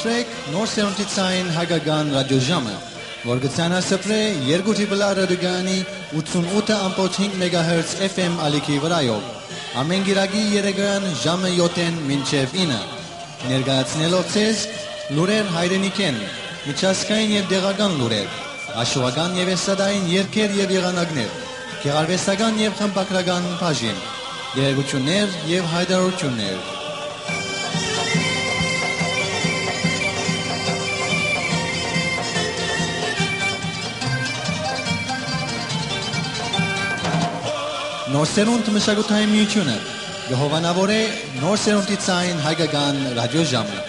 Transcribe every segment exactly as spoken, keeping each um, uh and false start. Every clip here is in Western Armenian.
Սպրեք նոր սերունդի ցային հայկական ռադիոժամը, որ կը ցանասպրէ երկու Triple R ռադիոկայանի ութսունութ ըմբոց հինգ մեգահերց F M ալիքի վրայով, ամէն կիրակի երեկոյան ժամը յոթ մինչեւ ինը, ներկայացնելով ձեզ լուրեր հայրենիքէն, միջազգային եւ տեղական լուրեր, աշուական եւ էստրադային երգեր եւ եղանակներ, գեղարուեստական եւ խմբագրական բաժին, տեղեկութիւններ եւ յայտարարութիւններ։ Նոր սերունդ մշակութային միութիւնը կը հովանաւորէ նոր սերունդի ցային հայկական ռադիոժամը։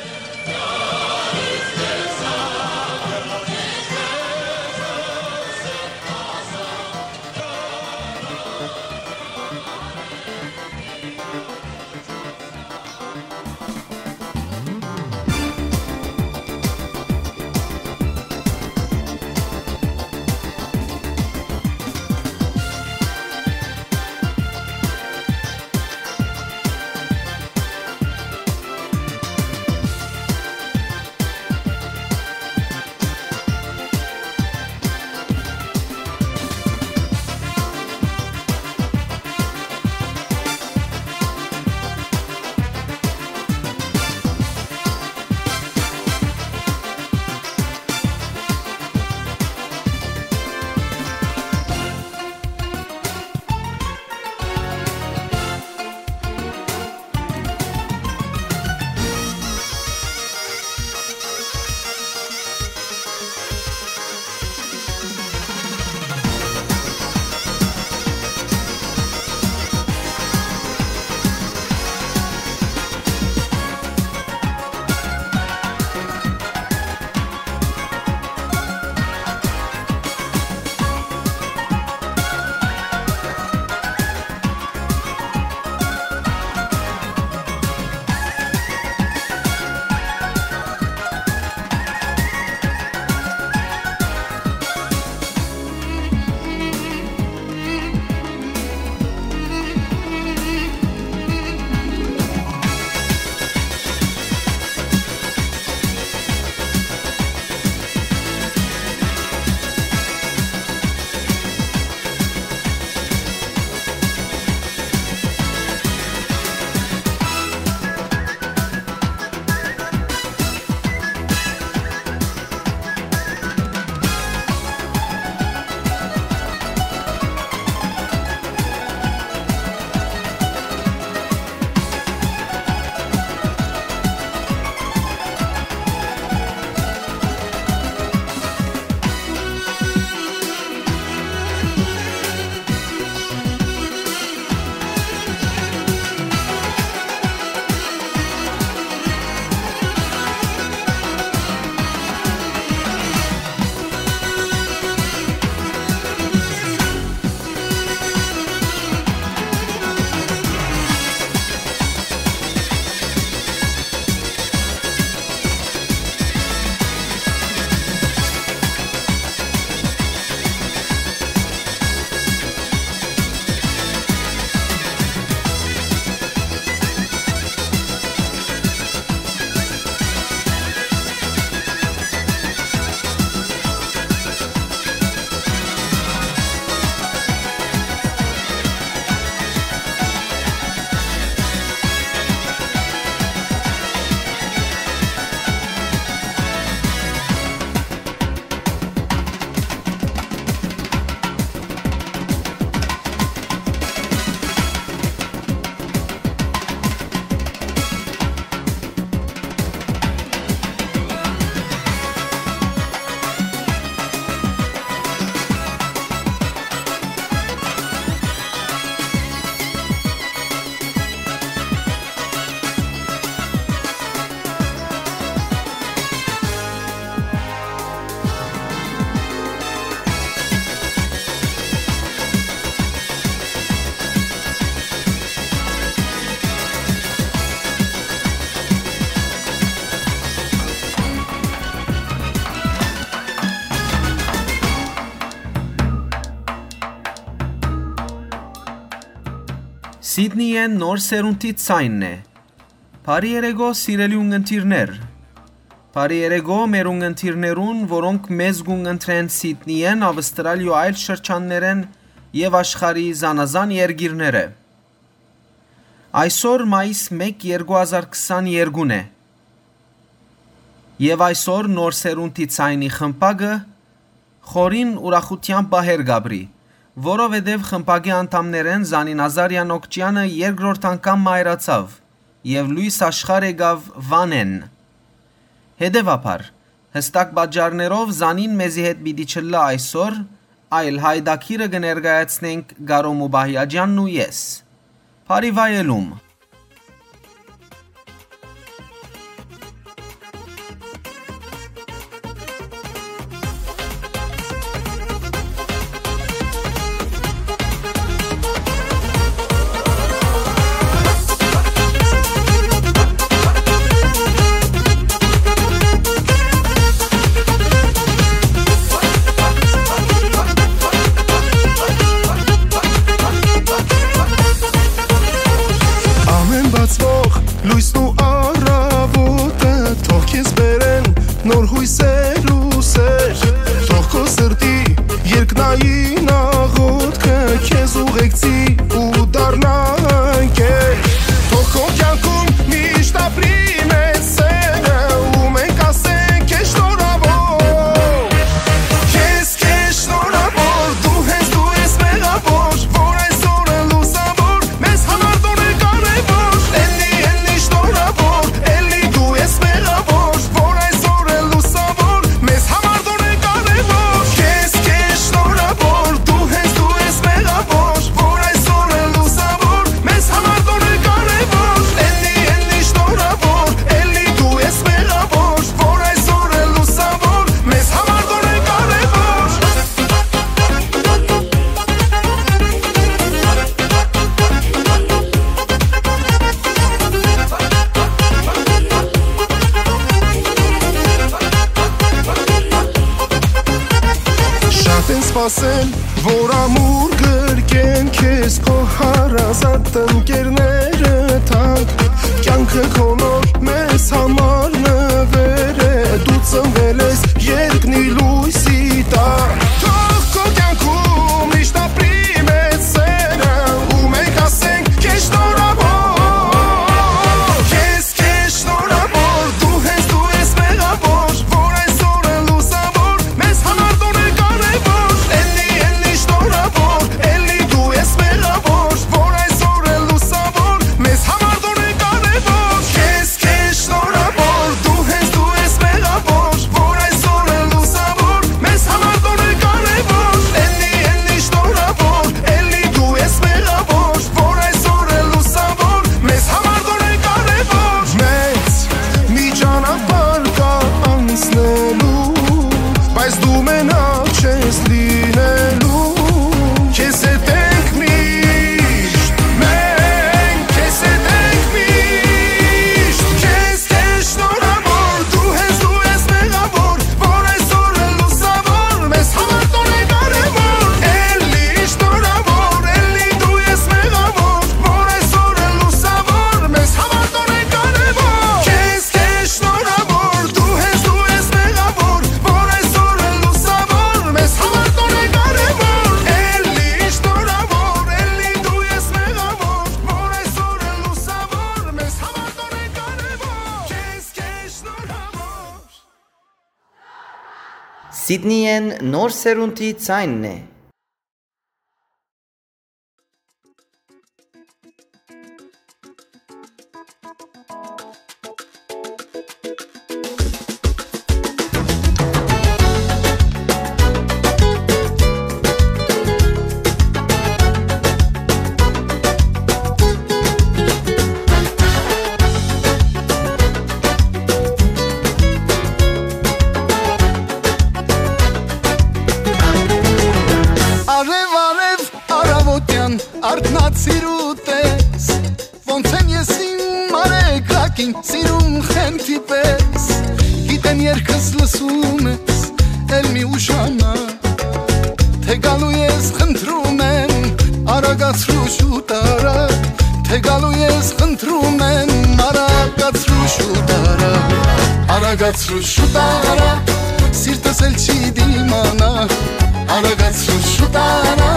Սիդնիյէն նոր սերունդի ցայնն է։ Բարի երեկո, սիրելի ունգընտիրներ։ Բարի երեկո մեր ունգընտիրներուն, որոնք մեզ կունգընտրեն Սիդնիեն, Ավստրալիոյ այլ շրջաններէն եւ աշխարհի զանազան երկիրներէ։ Այսօր մայիս մէկ, երկու հազար քսաներկուն է։ Եւ այսօր Նոր Սերունդի Ցայնի խմբակը խորին ուրախութեան պահեր կ'ապրի, որովհետեւ խմբակի անդամներէն Զանին Ազարեան Օքճեանը երկրորդ անգամ մայրացաւ եւ լոյս աշխարհ եկաւ Վանէն։ Հետեւաբար, յստակ պատճառներով Զանին մեզի հետ պիտի չըլլայ այսօր, այլ յայտագիրը կը ներկայացնենք Կարո Մուբահիաջյանն ու ես։ Բարի վայելում։ Ամէն բացուող լոյսն ու առաւոտը, թող քեզ բերեն նոր յոյսեր ու սեր, թող քո սրտի երկնային աղոթքը քեզ ուղեկցի ու դառնա ընկեր, թող քո կյանքում միշտ ապրի մեծ սերը, ու մենք ասենք քեզ շնորհաւոր։ Քեզ, քեզ շնորհաւոր, դու հենց դու ես մեղավոր, որ այսօրը լուսաւոր, մեզ համար դու ես կարևոր, էլի, էլի շնորհաւոր, էլի դու ես մեղավոր, որ այսօրը լուսաւոր, մեզ համար դու ես կարևոր, քեզ, քեզ շնորհաւոր, դու հենց դու ես մեղավոր, որ այսօրը լուսաւոր, մեզ համար դու ես կարևոր, էլի, էլի շնորհաւոր, էլի դու ես մեղավոր, որ այսօրը լուսաւոր, մեզ համար դու ես կարևոր։ Շատ են սպասել, որ ամուր գրկեն քեզ քո հարազատ ընկերները թանկ։ Կյանքը քո նոր մեզ համար նվեր է, դու ծնվել ես երկնի լույսի տակ։ Թող քո կյանքում միշտ ապրի մեծ սերը, ու մենք ասենք քեզ շնորհաւոր։ Քեզ, քեզ շնորհաւոր, դու հենց դու ես մեղավոր, որ այսօրը լուսաւոր, մեզ համար դու ես կարևոր, էլի, էլի շնորհաւոր, էլի դու ես մեղավոր, որ այսօրը լուսաւոր, մեզ համար դու ես կարևոր, քեզ, քեզ շնորհաւոր, դու հենց դու ես մեղավոր, որ այսօրը լուսաւոր, մեզ համար դու ես կարևոր, էլի, էլի շնորհաւոր, էլի դու ես մեղավոր, որ այսօրը լուսաւոր, մեզ համար դու ես կարևոր։ Մեծ մի ճանապարհ կայ անցնելու, բայց դու մենակ չես լինելու, քեզ հետ ենք միշտ, մենք քեզ հետ ենք միշտ, քեզ, քեզ շնորհաւոր, դու հենց դու ես մեղավոր, որ այսօրը լուսաւոր, մեզ համար դու ես կարևոր, էլի շնորհաւոր, էլի դու ես մեղավոր, որ այսօրը լուսաւոր, մեզ համար դու ես կարևոր, քեզ, քեզ շնորհաւոր, դու հենց դու ես մեղավոր, որ այսօրը լուսաւոր, մեզ համար դու ես կարևոր, էլի շնորհաւոր, էլի դու ես մեղավոր, որ այսօրը լուսաւոր, մեզ համար դու ես կարևոր, քեզ, քեզ շնորհաւոր։ Սիդնիեն Նոր Սերունդի Ցայնն է։ Արեւ, արեւ, առաւոտեան արթնացիր ու տես, ոնց եմ ես իմ արեգակին սիրում խենթի պես։ Գիտեմ, երգս լսում ես, էլ մի ուշանա, թե գալու ես, խնդրում եմ, արագացրու շուտ արա, Գալու ես խնդրում եմ, արագացրու շուտ արա, արագացրու շուտ արա, սիրտս էլ չի դիմանա, արագացրու շուտ արա,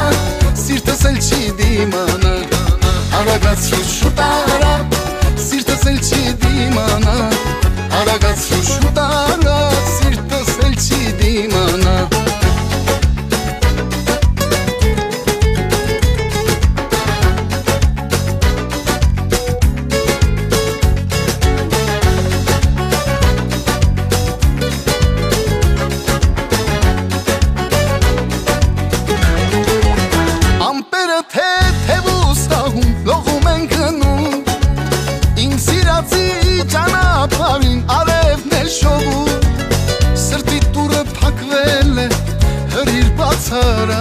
սիրտս էլ չի դիմանա, արագացրու շուտ արա, սիրտս էլ չի դիմանա, արագացրու շուտ արա, սիրտս էլ չի դիմանա։ Ամպերը թեթեւ ու սահում լողում են գնում, իմ սիրածի ճանապարհին արևն է շովում, սրտի դուռը փակվել է, հրիր բացարա,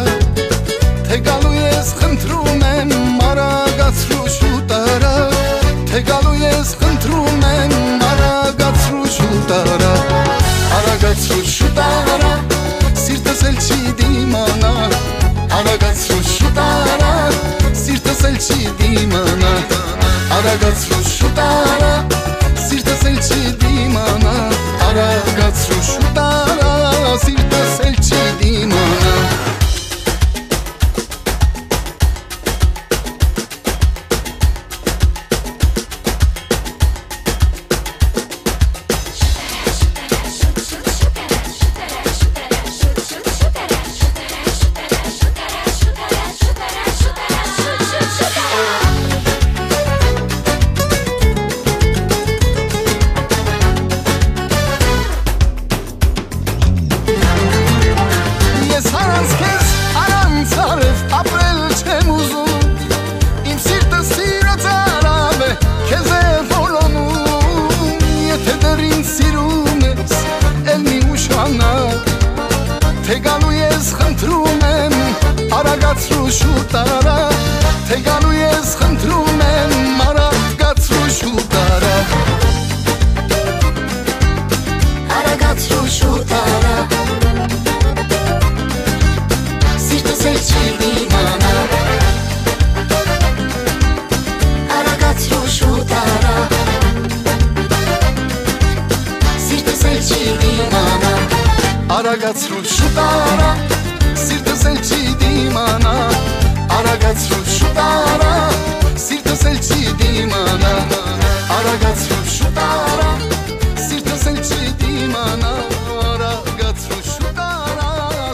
թե գալու ես խնդրում եմ, արագացրու շուտ արա, թե գալու ես խնդրում եմ, արագացրու շուտ արա, արագացրու շուտ արա, սիրտս էլ չի դիմանա, արագացրու շուտ արա, սիրտս էլ չի դիմանա, արագացրու շուտ արա, սիրտս էլ չի դիմանա, արագացրու շուտ արա, սիրտս էլ չի դիմանա։ Ես առանց քեզ, առանց արեւ ապրել չեմ ուզում, իմ սիրտը սիրո ծարաւ է, քեզ է որոնում, եթե դեռ ինձ սիրում ես, էլ մի ուշանա, թե գալու ես խնդրում եմ, արագացրու շուտ արա, թե գալու ես խնդրում եմ, արագացրու շուտ արա։ Արագացրու շուտ արա, սիրտս էլ չի դիմանա, արագացրու շուտ արա, սիրտս էլ չի դիմանա, արագացրու շուտ արա, սիրտս էլ չի դիմանա, արագացրու շուտ արա, սիրտս էլ չի դիմանա, արագացրու շուտ արա, սիրտս էլ չի դիմանա, արագացրու շուտ արա,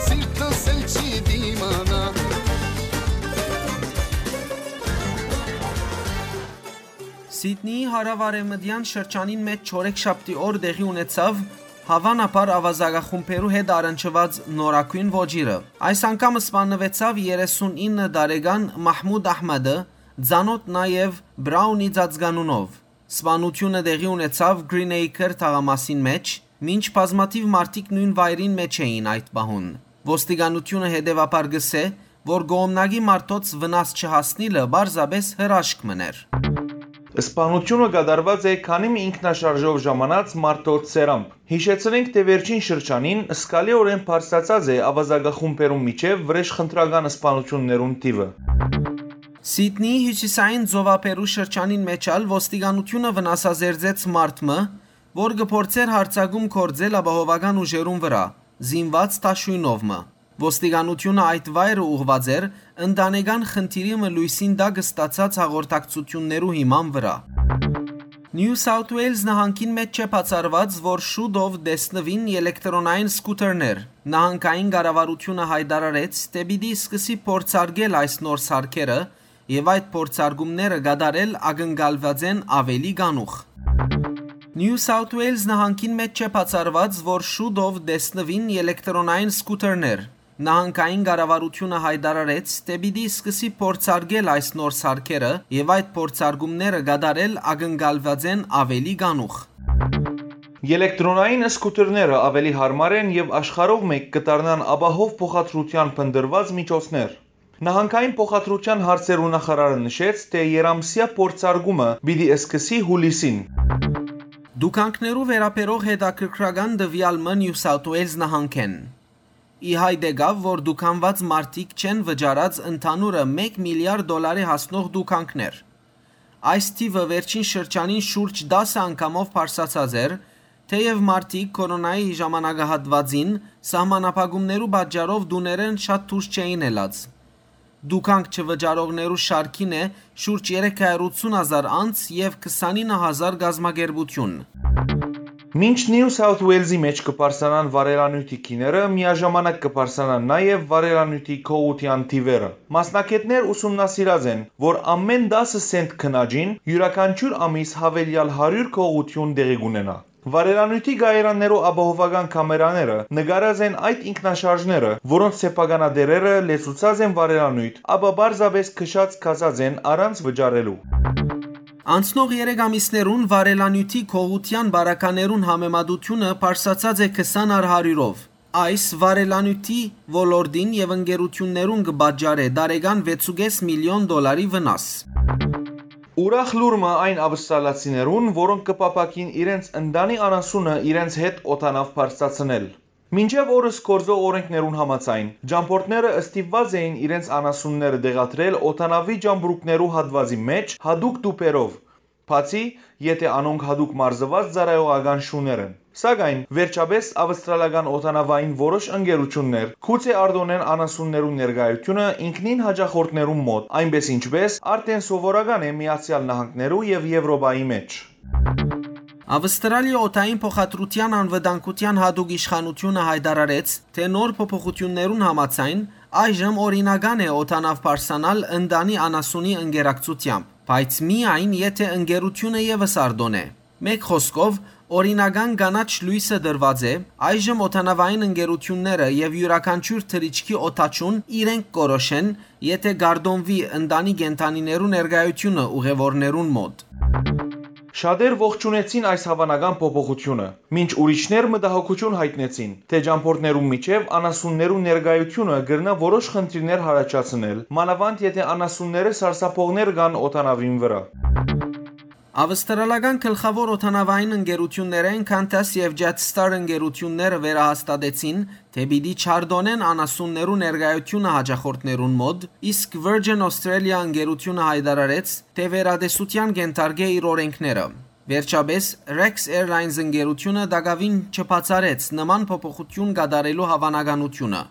սիրտս էլ չի դիմանա։ Սիդնիի հարաւարեւմտեան շրջանին մէջ չորեքշաբթի օր տեղի ունեցաւ հաւանաբար աւազակախումբերու հետ առնչուած նորագոյն ոճիրը։ Այս անգամ սպաննուեցաւ երեսունինը տարեկան Մահմուդ Ահմեդը, ծանօթ նաեւ Բրաունի ծածկանունով։ Սպանութիւնը տեղի ունեցաւ Greenacre թաղամասին մէջ, մինչ բազմաթիւ մարդիկ նոյն վայրին մէջ էին այդ պահուն։ Ոստիկանութիւնը հետեւաբար կ'ըսէ, որ կողմնակի մարդոց վնաս չհասնիլը պարզապէս հրաշք մըն էր։ Սպանութիւնը կատարուած է քանի մը ինքնաշարժով ժամանած մարդոց սերամբ։ Յիշեցնենք, թէ վերջին շրջանին զգալիօրէն բարձրացած է աւազակախումբերուն միջեւ վրէժխնդրական սպանութիւններուն թիւը։ Սիդնիի հիւսիսային ծովափերու շրջանին մէջ ալ ոստիկանութիւնը վնասազերծեց մարդ մը, որ կը փորձէր յարձակում գործել ապահովական ուժերուն վրայ, զինուած դաշոյնով մը։ Ոստիկանութիւնը այդ վայրը ուղղուած էր ընտանեկան խնդիրի մը լոյսին տակ ստացած հաղորդակցութիւններու հիման վրայ։ Նիու Սաութ Ուէյլզ նահանգին մէջ չէ բացառուած, որ շուտով տեսնուին ելեկտրոնային սկութերներ։ Նահանգային կառավարութիւնը յայտարարեց, թէ պիտի սկսի փորձարկել այս նոր սարքերը, եւ այդ փորձարկումները կատարել ակնկալուած են աւելի կանուխ։ Նիու Սաութ Ուէյլզ նահանգին մէջ չէ բացառուած, որ շուտով տեսնուին ելեկտրոնային սկութերներ։ Նահանգային կառավարութիւնը յայտարարեց, թէ պիտի սկսի փորձարկել այս նոր սարքերը, եւ այդ փորձարկումները կատարել ակնկալուած են աւելի կանուխ։ Ելեկտրոնային սկութերները աւելի յարմար են եւ աշխարհով մէկ կը դառնան ապահով փոխադրութեան փնտռուած միջոցներ։ Նահանգային փոխադրութեան հարցերու նախարարը նշեց, թէ երամսեայ փորձարկումը պիտի սկսի յուլիսին։ Տուգանքներու վերաբերող հետաքրքրական տուեալ մը Նիու Սաութ Ուէյլզ նահանգէն։ Ի հայտ եկաւ, որ տուգանուած մարդիկ չեն վճարած ընդհանուրը մէկ միլիարդ դոլարի հասնող տուգանքներ։ Այս թիւը վերջին շրջանին շուրջ տասը անգամով բարձրացած էր, թէեւ մարդիկ կորոնայի ժամանակահատուածին սահմանափակումներու պատճառով տուներէն շատ դուրս չէին ելած։ Դուքանք չվճարողներու շարքին է շուրջ երեք հարիւր ութսուն հազար անձ եւ քսանինը հազար կազմակերպութիւն։ Մինչ Նիու Սաութ Ուելզի մէջ կը բարձրանան վառելանիւթի գիները, միաժամանակ կը բարձրանան նաեւ վառելանիւթի գողութեան թիւերը։ Մասնագէտներ ուսումնասիրած են, որ ամէն տասը սենտ քննաջին յուրաքանչիւր ամիս յաւելեալ հարիւր գողութիւն տեղի կունենայ։ Վառելանիւթի կայարաններու ապահովական կամերաները նկարած են այդ ինքնաշարժները, որոնց սեփականատէրերը լեցուցած են վառելանիւթ, ապա պարզապէս քշած գացած են առանց վճարելու։ Անցնող երեք ամիսներուն վառելանիւթի գողութեան պարագաներուն համեմատութիւնը բարձրացած է քսան առ հարիւրով։ Այս վառելանիւթի ոլորտին եւ ընկերութիւններուն կը պատճառէ տարեկան վեցուկէս միլիոն դոլարի վնաս։ Ուրախ լուր մը այն ավստրալացիներուն, որոնք կը փափաքին իրենց ընտանի անասունը իրենց հետ օդանաւ բարձրացնել։ Մինչեւ օրս գործող օրենքներուն համաձայն, ճամբորդները ստիպուած էին իրենց անասունները տեղադրել օդանաւի ճամբրուկներու հատուածի մէջ յատուկ տուփերով, բացի եթէ անոնք յատուկ մարզուած ծառայողական շուներ են։ Սակայն, վերջապէս, ավստրալական օդանաւային որոշ ընկերութիւններ գուցե արտօնեն անասուններու ներկայութիւնը ինքնին յաճախորդներուն մօտ, այնպէս ինչպէս արդէն սովորական է Միացեալ Նահանգներու եւ Եւրոպայի մէջ։ Ավստրալիա օդային փոխադրութեան անվտանգութեան յատուկ իշխանութիւնը յայտարարեց, թէ նոր փոփոխութիւններուն համաձայն այժմ օրինական է օդանաւ բարձրանալ ընտանի անասունի ընկերակցութեամբ, բայց միայն եթէ ընկերութիւնը եւս արտօնէ։ Մէկ խօսքով, օրինական կանաչ լոյսը տրուած է, այժմ օդանաւային ընկերութիւնները եւ իւրաքանչիւր թռիչքի օդաչուն իրենք կորոշեն, եթէ կարտոնուի ընտանի կենդանիներու ներկայութիւնը ուղեւորներուն մօտ։ Շատեր ողջունեցին այս հաւանական փոփոխութիւնը, մինչ ուրիշներ մտահոգութիւն յայտնեցին, թէ ճամբորդներուն միջեւ անասուններու ներկայութիւնը կրնայ որոշ խնդիրներ յառաջացնել, մանաւանդ եթէ անասունները սարսափողներ կան օդանաւին վրայ։ Ավստրալական գլխաւոր օդանաւային ընկերութիւններէն Qantas եւ Jetstar ընկերութիւնները վերահաստատեցին, թէ պիտի չարտօնեն անասուններու ներկայութիւնը յաճախորդներուն մօտ, իսկ Virgin Australia ընկերութիւնը յայտարարեց, թէ վերատեսութեան կ'ենթարկէ իր օրենքները։ Վերջապէս, Rex Airlines ընկերութիւնը տակաւին չբացառեց նման փոփոխութիւն կատարելու հաւանականութիւնը։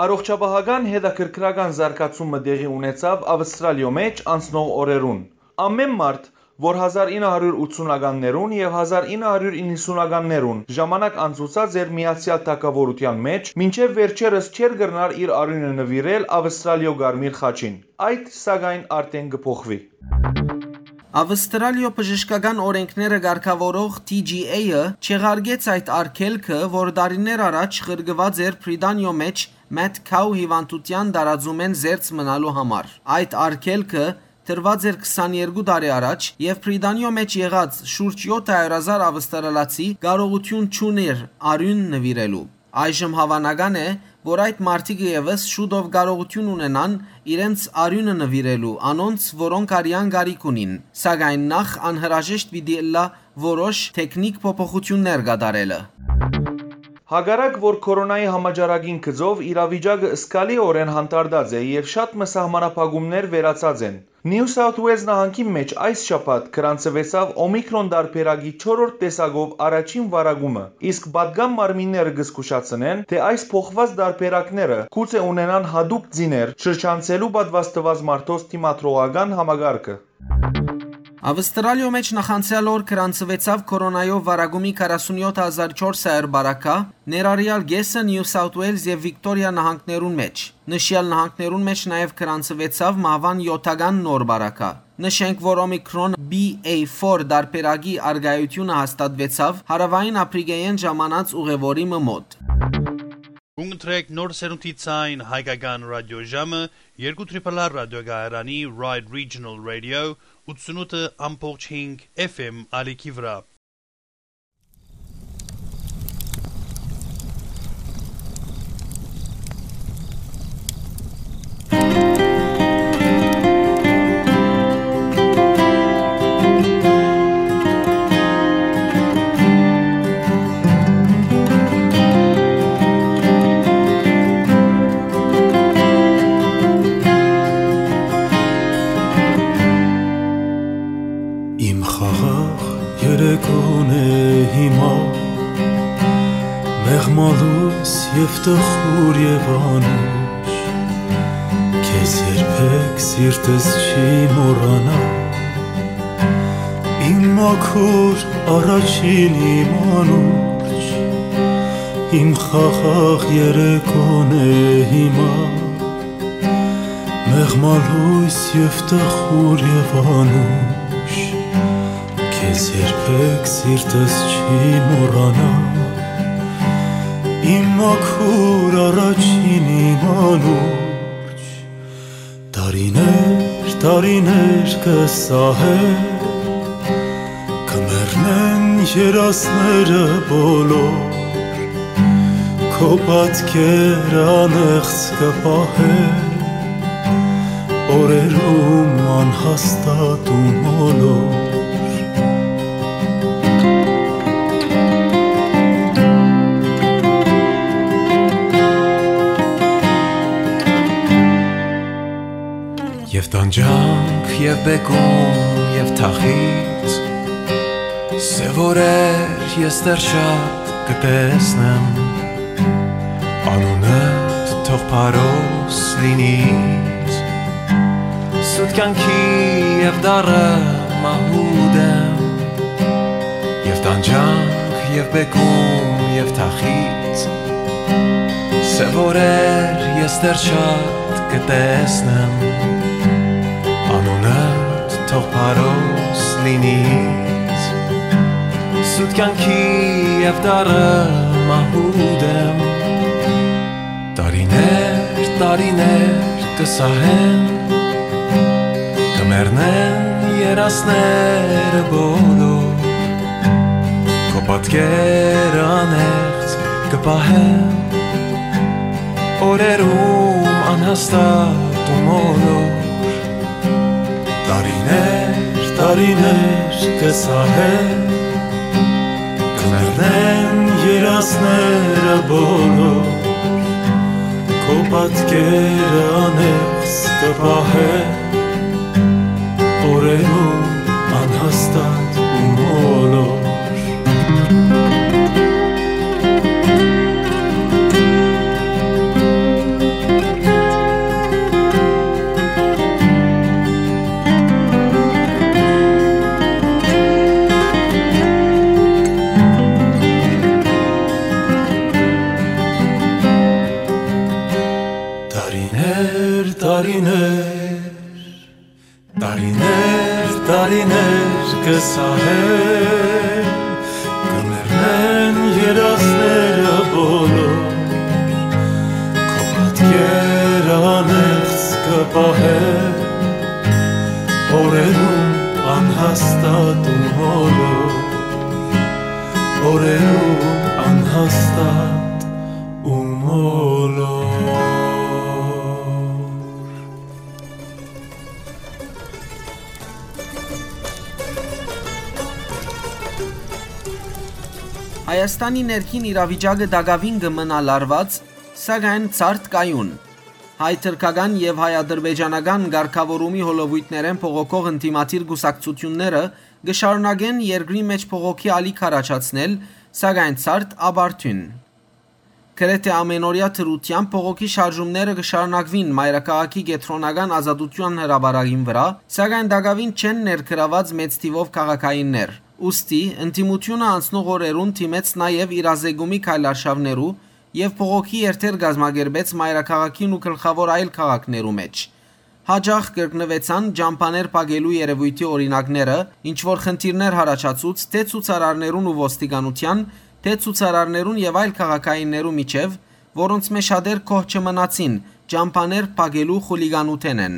Առողջապահական հետաքրքրական զարգացում մը տեղի ունեցաւ Ավստրալիոյ մէջ անցնող օրերուն։ Ամէն մարդ, որ հազար ինը հարիւր ութսունականներուն եւ հազար ինը հարիւր իննսունականներուն ժամանակ անցուցած էր Միացեալ Թագաւորութեան մէջ, մինչեւ վերջերս չէր կրնար իր արիւնը նուիրել Ավստրալիոյ Կարմիր խաչին։ Այդ, սակայն, արդէն կը փոխուի։ Ավստրալիոյ բժշկական օրենքները կարգաւորող T G A-ը չեղարկեց այդ արգելքը, որ տարիներ առաջ ղրկուած էր Բրիտանիոյ մէջ Mad Cow հիւանդութեան տարածումէն զերծ մնալու համար։ Այդ արգելքը տրուած էր քսաներկու տարի առաջ եւ Բրիտանիոյ մէջ եղած շուրջ եօթ հարիւր հազար ավստրալացի կարողութիւն չունէր արիւն նուիրելու։ Այժմ հաւանական է, որ այդ մարդիկը եւս շուտով կարողութիւն ունենան իրենց արիւնը նուիրելու անոնց, որոնք արեան կարիք ունին, սակայն նախ անհրաժեշտ պիտի ըլլայ որոշ թեքնիք փոփոխութիւններ կատարելը։ Հակառակ որ կորոնայի համաճարակին գծով իրավիճակը զգալիօրէն հանդարտած է եւ շատ մը սահմանափակումներ վերացած են, Նիու Սաութ Ուելզ նահանգին մէջ այս շաբաթ գրանցուեցաւ Օմիկրոն տարբերակի չորրորդ տեսակով առաջին վարակումը, իսկ պատկան մարմինները կը զգուշացնեն, թէ այս փոխուած տարբերակները գուցե ունենան յատուկ ծիներ շրջանցելու պատուաստուած մարդոց դիմադրողական համակարգը։ Ավստրալիոյ մէջ նախանցեալ օր գրանցուեցաւ կորոնայով վարակումի քառասունեօթ հազար չորս հարիւր բարակայ, ներառեալ կէսը Նիու Սաութ Ուելզ եւ Վիկտորիա նահանգներուն մէջ։ Նշեալ նահանգներուն մէջ նաեւ գրանցուեցաւ մահուան եօթական նոր բարակայ։ Նշենք, որ Օմիկրոն B A four տարբերակի առկայութիւնը հաստատուեցաւ Հարաւային Ափրիկէն ժամանած ուղեւորի մը մօտ։ Կունտրեք նոր սերունդի ցայն հայկական ռադիոժամը երկու Triple R ռադիոկայարանի Ride Regional Radio ութսունութ ամբողջ հինգ F M ալիքի վրայ։ Տխուր եւ անուշ, քեզ երբեք սիրտս չի մոռանա։ Իմ մաքուր առաջին, իմ անուշ, իմ խաղաղ երեկոն է հիմա։ Մեղմա լոյս եւ տխուր եւ անուշ, քեզ երբեք սիրտս չի մոռանա։ Իմ մաքուր առաջին, իմ անուշ, տարիներ, տարիներ կը սահեն, կը մեռնեն երազները բոլոր, քո պատկերը անեղծ կը պահեն, օրերում անհաստատ ու մոլոր։ Եւ տանջանք, եւ բեկում, եւ թախիծ, սեւ օրեր ես դեռ շատ կը տեսնեմ, անունդ թող փարոս լինի ինձ, սուտ կեանքի եւ դառը մահու դեմ, եւ տանջանք, եւ բեկում, եւ թախիծ, սեւ օրեր ես դեռ շատ կը տեսնեմ, անունդ թող փարոս լինի ինձ, սուտ կեանքի եւ դառը մահու դեմ։ Տարիներ, տարիներ կը սահեն, կը մեռնեն երազները բոլոր, քո պատկերը անեղծ կը պահեն, օրերում անհաստատ ու մոլոր։ Տարիներ, տարիներ կը սահեն, կը մեռնեն երազները բոլոր, քո պատկերը անեղծ կը պահեն, օրերում անհաստատ ու մոլոր։ Տարիներ, տարիներ, տարիներ, տարիներ կը սահեն, կը մեռնեն երազները բոլոր, քո պատկերը անեղծ կը պահեն, օրերում անհաստատ ու մոլոր, օրերում անհաստատ ու մոլոր։ Հայաստանի ներքին իրավիճակը տակաւին կը մնայ լարուած, սակայն ցարդ կայուն։ Հայ-թրքական եւ հայ-ադրբեջանական կարգաւորումի հոլովոյթներէն բողոքող ընդդիմադիր կուսակցութիւնները կը շարունակեն երկրի մէջ բողոքի ալիք առաջացնել, սակայն ցարդ ապարդիւն։ Գրեթէ ամենօրեայ դրութեամբ բողոքի շարժումները կը շարունակուին մայրաքաղաքի կեդրոնական Ազատութեան հրապարակին վրայ, սակայն տակաւին չեն ներգրաւուած մեծ թիւով քաղաքայիններ։ Ուստի, ընդդիմութիւնը անցնող օրերուն դիմեց նաեւ իրազեկումի քայլարշաւներու եւ բողոքի երթեր կազմակերպեց մայրաքաղաքին ու գլխաւոր այլ քաղաքներու մէջ։ Յաճախ կրկնուեցան ճամբաներ փակելու երեւոյթի օրինակները, ինչ որ խնդիրներ յառաջացուց թէ ցուցարարներուն ու ոստիկանութեան, թէ ցուցարարներուն եւ այլ քաղաքայիններու միջեւ, որոնցմէ շատեր գոհ չմնացին, ճամբաներ փակելու խուլիգանութենէն։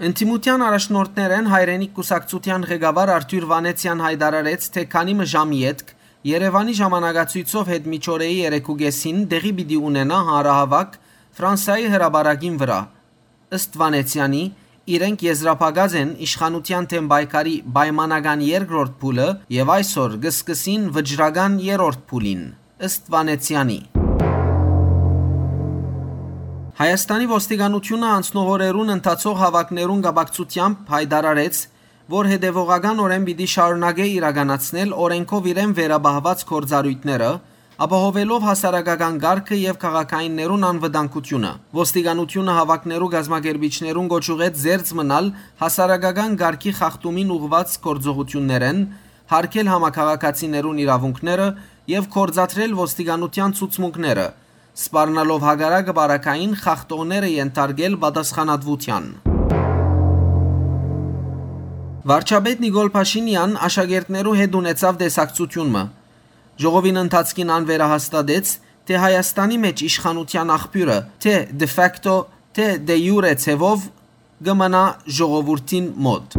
Ընդդիմութեան առաջնորդներէն Հայրենիք կուսակցութեան ղեկավար Արթուր Վանեցեան յայտարարեց, թէ քանի մը ժամ ետք Երեւանի ժամանակացոյցով յետ միջօրեի երեքուկէսին տեղի պիտի ունենայ հանրահաւաք Ֆրանսայի հրապարակին վրայ։ Ըստ Վանեցեանի, իրենք եզրափակած են իշխանութեան դէմ պայքարի պայմանական երկրորդ փուլը եւ այսօր կը սկսին վճռական երրորդ փուլին, ըստ Վանեցեանի։ Հայաստանի ոստիկանութիւնը անցնող օրերուն ընթացող հաւաքներուն կապակցութեամբ յայտարարեց, որ հետեւողականօրէն պիտի շարունակէ իրականացնել օրէնքով իրեն վերապահուած գործառոյթները, ապահովելով հասարակական կարգը եւ քաղաքայիններուն անվտանգությունը։ Ոստիկանութիւնը հաւաքներու կազմակերպիչներուն կոչ ուղղեց զերծ մնալ հասարակական կարգի խախտումին ուղղուած գործողութիւններէն, յարգել համաքաղաքացիներուն իրաւունքները եւ գործադրել ոստիկանութեան ցուցմունքները, սպառնալով հակառակը պարագային խախտողները ենթարկել պատասխանատուութեան։ Վարչապետ Նիկոլ Փաշինեան աշակերտներու հետ ունեցաւ տեսակցութիւն մը։ Ժողովին ընթացքին ան վերահաստատեց, թէ Հայաստանի մէջ իշխանութեան աղբիւրը, թէ de facto, թէ de jure ձեւով, կը մնայ ժողովուրդին մօտ։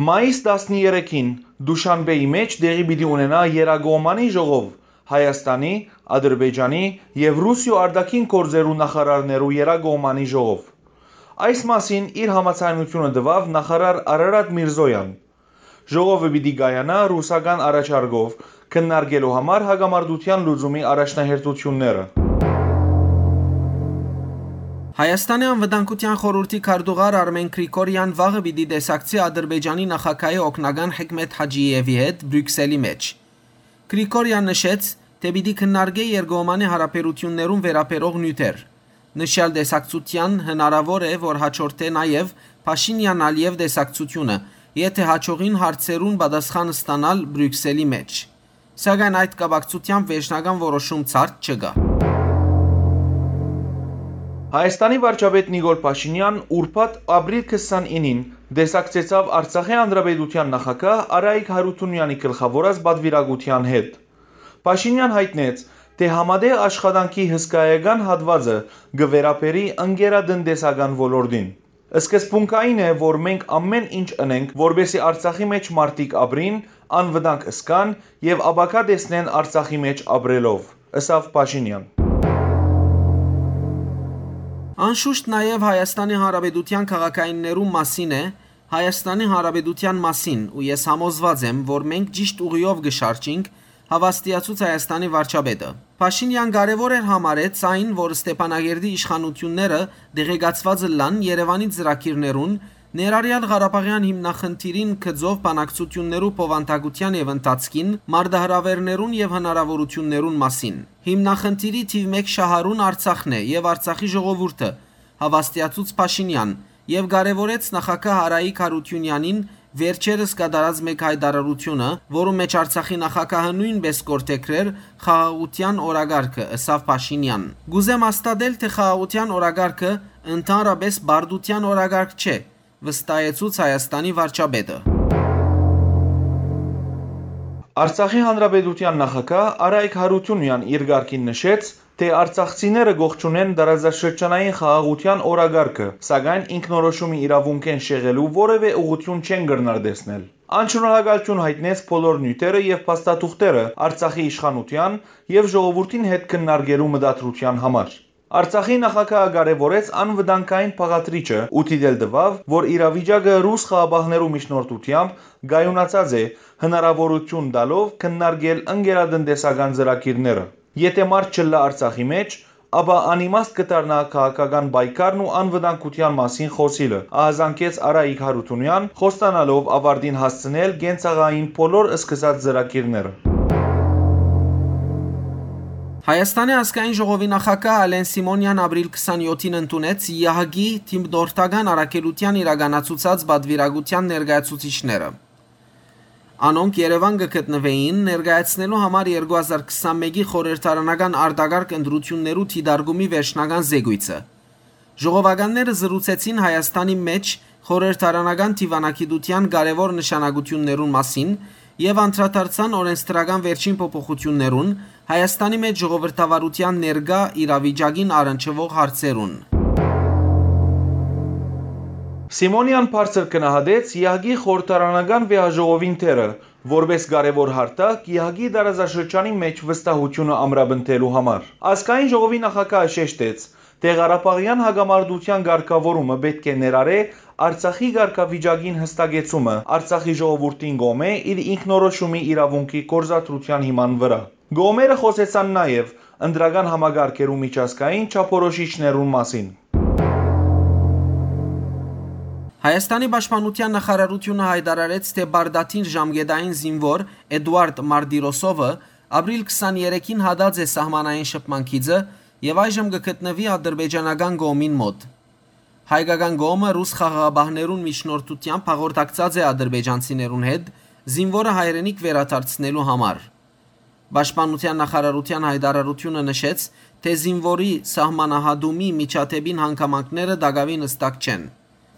Մայիս տասներեքին Դուշանբեի մէջ տեղի պիտի ունենայ երկկողմանի ժողով Հայաստանի, Ադրբեջանի եւ Ռուսիոյ արտաքին գործերու նախարարներու երկկողմանի ժողով։ Այս մասին իր համաձայնութիւնը տուաւ նախարար Արարատ Միրզոյան։ Ժողովը պիտի կայանայ ռուսական առաջարկով, քննարկելու համար հակամարտութեան լուծումի առաջնահերթութիւնները։ Հայաստանի անվտանգութեան խորհուրդի քարտուղար Արմեն Գրիգորեան վաղը պիտի տեսակցի Ադրբեջանի նախագահի օգնական Հեքմեթ Հաճիեւի հետ Բրիւքսելի մէջ։ Գրիգորեան նշեց, թէ պիտի քննարկէ երկկողմանի յարաբերութիւններուն վերաբերող նիւթեր։ Նշեալ տեսակցութեան հնարաւոր է, որ հաջորդէ նաեւ Փաշինեան-Ալիեւ տեսակցութիւնը, եթէ հաջողին հարցերուն պատասխան ստանալ Բրիւքսելի մէջ։ Սակայն այդ կապակցութեամբ վերջնական որոշում ցարդ չկայ։ Հայաստանի վարչապետ Նիկոլ Փաշինեան ուրբաթ ապրիլ քսանինին տեսակցեցաւ Արցախի Հանրապետութեան նախագահ Արայիկ Հարութունեանի գլխաւորած պատուիրակութեան հետ։ Փաշինեան յայտնեց, թէ համատեղ աշխատանքի հսկայական հատուածը կը վերաբերի ընկերատնտեսական ոլորտին։ Սկզբունքային է, որ մենք ամէն ինչ ընենք, որպեսզի Արցախի մէջ մարդիկ ապրին, անվտանգ զգան եւ ապագայ տեսնեն Արցախի մէջ ապրելով, ըսաւ Փաշինեան։ Անշուշտ նաեւ Հայաստանի Հանրապետութեան քաղաքայիններուն մասին է, Հայաստանի Հանրապետութեան մասին, ու ես համոզուած եմ, որ մենք ճիշտ ուղիով կը շարժինք, հաւաստիացուց Հայաստանի վարչապետը։ Փաշինեան կարեւոր էր համարեց այն, որ Ստեփանագերդի իշխանութիւնները տեղեկացուած ըլլան Երեւանի ծրագիրներուն, ներառեալ Ղարաբաղեան հիմնախնդիրին գծով բանակցութիւններու բովանդակութեան եւ ընթացքին մարտահրաւէրներուն եւ հնարաւորութիւններուն մասին։ Հիմնախնդիրի թիւ մէկ շահառուն Արցախն է եւ Արցախի ժողովուրդը, հաւաստիացուց Փաշինեան, եւ կարեւորեց նախագահ Արայիկ Հարութիւնեանին վերջերս կատարած մէկ յայտարարութիւնը, որու մէջ Արցախի նախագահը նոյնպէս կորթեքրեր խաղաղութեան օրակարգը, ըսաւ Փաշինեան։ Կ'ուզեմ հաստատել, թէ խաղաղութեան օրակարգը ընդհանրապէս պարտութեան օրակարգ չէ, վստահեցուց Հայաստանի վարչապետը։ Արցախի Հանրապետութեան նախագահ Արայիկ Հարութունեան իր կարգին նշեց, թէ արցախցիները կողջունեն տարածաշրջանային խաղաղութեան օրակարգը, սակայն ինքնորոշումի իրաւունքէն շեղելու որեւէ ուղղութիւն չեն կրնար տեսնել։ Ան շնորհակալութիւն յայտնեց բոլոր նիւթերը եւ փաստաթուղթերը Արցախի իշխանութեան եւ ժողովուրդին հետ քննարկելու մտադրութեան համար։ Արցախի նախագահը կարեւորեց անվտանգային բաղադրիչը ու դիտել տուաւ, որ իրավիճակը ռուս խաղապահներու միջնորդութեամբ կայունացած է, հնարաւորութիւն տալով քննարկել ընկերատնտեսական ծրագիրները։ Եթէ մարդ չըլլայ Արցախի մէջ, ապա անիմաստ կը դառնայ քաղաքական պայքարն ու անվտանգութեան մասին խօսիլը, ահազանգեց Արայիկ Հարութունեան, խոստանալով աւարտին հասցնել կենցաղային բոլոր սկսած ծրագիրները։ Հայաստանի ազգային ժողովի նախագահ Ալեն Սիմոնեան ապրիլ քսանեթին ընդունեց ԵԱՀԿ-ի թիմնորդական առաքելութեան իրականացուցած պատվիրակութեան ներկայացուցիչները։ Անոնք Երեւան կը գտնուէին, ներկայացնելու համար երկու հազար քսանմէկի խորհրդարանական արտակարգ ընտրութիւններու դիտարկումի վերջնական զեկոյցը։ Ժողովականները զրուցեցին Հայաստանի մէջ խորհրդարանական դիւանագիտութեան կարեւոր նշանակութիւններուն մասին եւ անդրադարձան օրենսդրական վերջին փոփոխութիւններուն, Հայաստանի մէջ ժողովրդավարութեան ներկայ իրավիճակին առնչուող հարցերուն։ Սիմոնեան բարձր գնահատեց ԵԱՀԿ-ի խորհրդարանական վեհաժողովին դերը, որպէս կարեւոր հարթակ ԵԱՀԿ-ի տարածաշրջանի մէջ վստահութիւնը ամրապնդելու համար։ Ազգային ժողովի նախագահը շեշտեց, թէ Ղարաբաղեան հակամարտութեան կարգաւորումը պէտք է ներառէ Արցախի կարգավիճակին հստակեցումը Արցախի ժողովուրդին կողմէ իր ինքնորոշումի իրաւունքի գործադրութեան հիման վրայ։ Կողմերը խօսեցան նաեւ ընտրական համակարգերու միջազգային չափորոշիչներուն մասին։ Հայաստանի պաշտպանութեան նախարարութիւնը յայտարարեց, թէ պարտադիր ժամկետային զինուոր Էդուարդ Մարտիրոսովը ապրիլ քսաներեքին հատած է սահմանային շփման գիծը եւ այժմ կը գտնուի ադրբեջանական կողմին մօտ։ Հայկական կողմը ռուս խաղաղապահներուն միջնորդութեամբ հաղորդակցած է ադրբեջանցիներուն հետ՝ զինուորը հայրենիք վերադարձնելու համար։ Պաշտպանութեան նախարարութեան յայտարարութիւնը նշեց, թէ զինուորի սահմանահատումի միջադէպին հանգամանքները տակաւին հստակ չեն։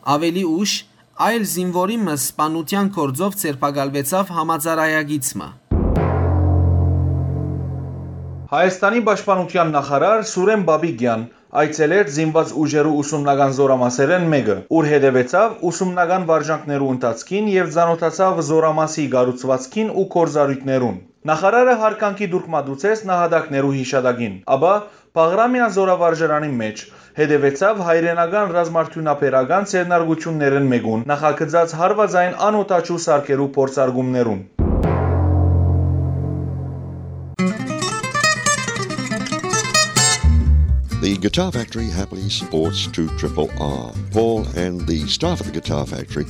Աւելի ուշ, այլ զինուորի մը սպանութեան գործով ձերբակալուեցաւ համաձայնագիծ մը։ Հայաստանի պաշտպանութեան նախարար Սուրեն Պապիկեան այցելեց զինուած ուժերու ուսումնական զորամասերէն մէկը, ուր հետեւեցաւ ուսումնական վարժանքներու ընթացքին եւ ծանօթացաւ զորամասի կառուցուածքին ու գործառոյթներուն։ Նախարարը յարգանքի տուրք մատուցեց նահատակներու յիշատակին, ապա Բաղրամեան զորավարժարանին մէջ հետեւեցաւ հայրենական ռազմարդիւնաբերական ձեռնարկութիւններէն մէկուն՝ նախագծած հարուածային անօդաչու սարքերու փորձարկումներուն։ The Guitar Factory happily supports two triple R. Paul and the staff at the Guitar Factory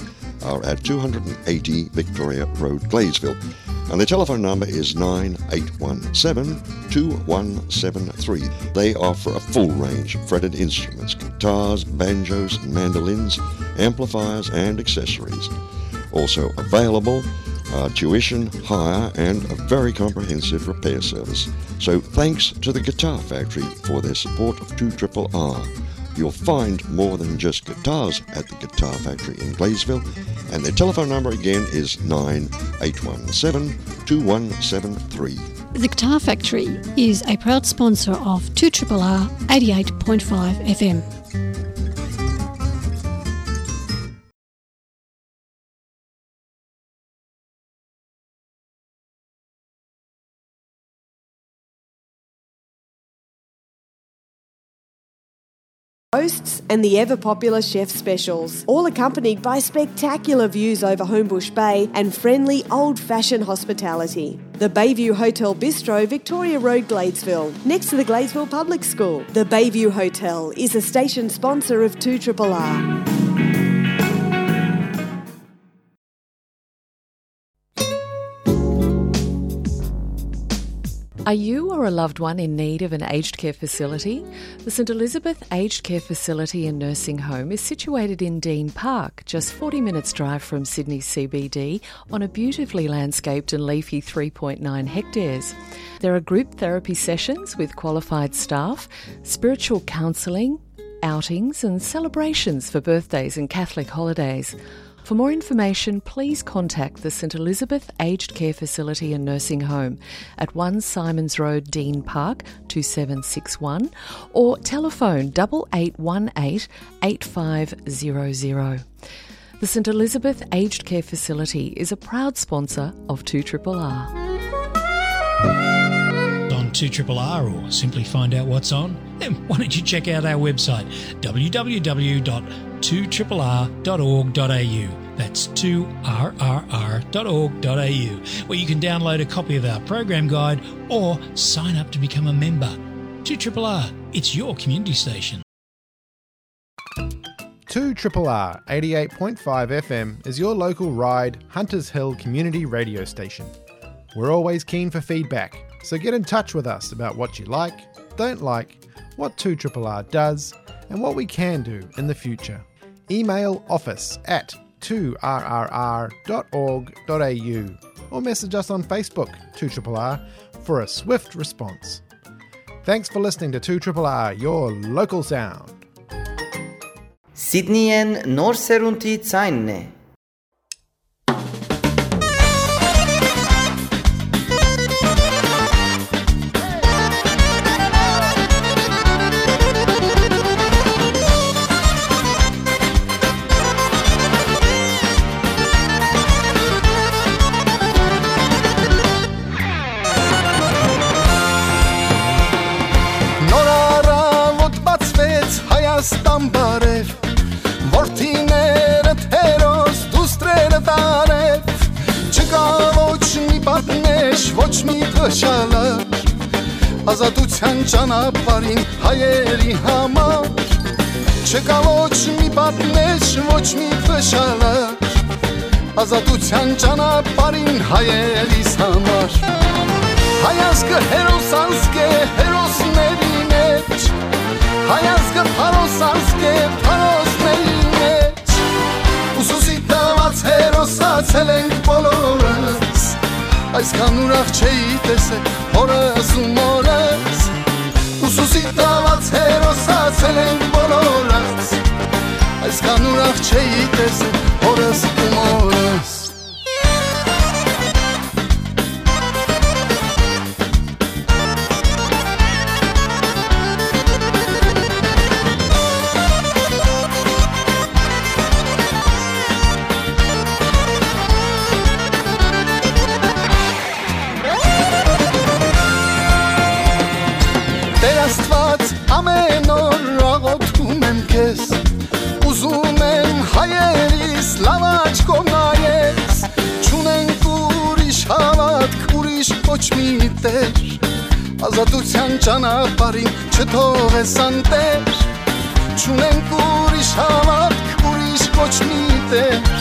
are at two hundred and eighty Victoria Road, Gladesville. And the telephone number is nine eight one seven, two one seven three. They offer a full range of fretted instruments, guitars, banjos, mandolins, amplifiers, and accessories. Also available are tuition, hire, and a very comprehensive repair service. So thanks to the Guitar Factory for their support of two triple R. You'll find more than just guitars at the Guitar Factory in Gladesville, and their telephone number again is nine eight one seven, two one seven three. The Guitar Factory is a proud sponsor of two triple R eighty-eight point five F M. Roasts and the ever popular chef specials, all accompanied by spectacular views over Homebush Bay and friendly old-fashioned hospitality. The Bayview Hotel Bistro, Victoria Road, Gladesville, next to the Gladesville Public School. The Bayview Hotel is a station sponsor of two triple R. Are you or a loved one in need of an aged care facility? The St Elizabeth Aged Care Facility and Nursing Home is situated in Dean Park, just forty minutes drive from Sydney C B D, on a beautifully landscaped and leafy three point nine hectares. There are group therapy sessions with qualified staff, spiritual counselling, outings and celebrations for birthdays and Catholic holidays. For more information, please contact the St Elizabeth Aged Care Facility and Nursing Home at one Symonds Road, Dean Park, two seven six one, or telephone double eight one eight, eight five zero zero. The St Elizabeth Aged Care Facility is a proud sponsor of two triple R. On two triple R, or simply find out what's on, then why don't you check out our website, w w w dot two triple r dot org dot a u. That's two r r r dot org dot a u, where you can download a copy of our program guide or sign up to become a member. two triple R, it's your community station. two triple R eighty-eight point five F M is your local Ryde, Hunters Hill community radio station. We're always keen for feedback, so get in touch with us about what you like, don't like, what two triple R does, and what we can do in the future. Email office at two r r r dot org dot a u or message us on Facebook, two triple R, for a swift response. Thanks for listening to two triple R, your local sound. Սիդնիեն նոր սերունդի ձայնն է։ Նոր առավոտ բացվեց Հայաստան բարև, որդիներդ հերոս, դուստրերդ արև, չկա ոչ մի պատնեշ, ոչ մի փշալար, ազատության ճանապարհին հայերի համար։ Չկայ ոչ մի պատնէշ, ոչ մի փշալար, ազատութեան ճանապարհին հայերիս համար։ Հայ ազգը հերոս ազգ է հերոսների մէջ, հայ ազգը փարոս ազգ է փարոսների մէջ։ Ուսուսի տված հերոսացել ենք բոլորս, այսքան ուրախ չէի տեսել հորս ու մորս։ Ուսուսի տված հերոսացել ենք բոլորս, այսքան ուրախ չէի տեսել հորս ու մորս։ Տեր Աստուած, ամեն օր աղոթում եմ քեզ, ուզում եմ հայերիս լաւ աչքով նայես, չունենք ուրիշ հաւատք, ուրիշ ոչ մի Տեր, ազատութեան ճանապարհին չթողես անտեր, չունենք ուրիշ հաւատք, ուրիշ ոչ մի Տեր,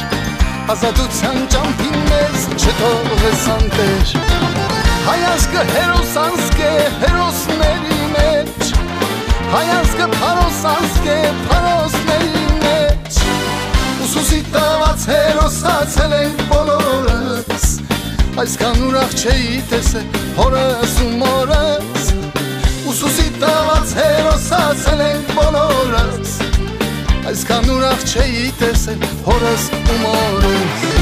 ազատութեան ճամփին մեզ չթողես անտեր։ Հայ ազգը հերոս ազգ է հերոսների մէջ, հայ ազգը փարոս ազգ է փարոսների մէջ, ուսուսի տված հերոսացել ենք բոլորս, այսքան ուրախ չէի տեսել հորս ու մորս, ուսուսի տված հերոսացել ենք բոլորս, այսքան ուրախ չէի տեսել հորս ու մորս։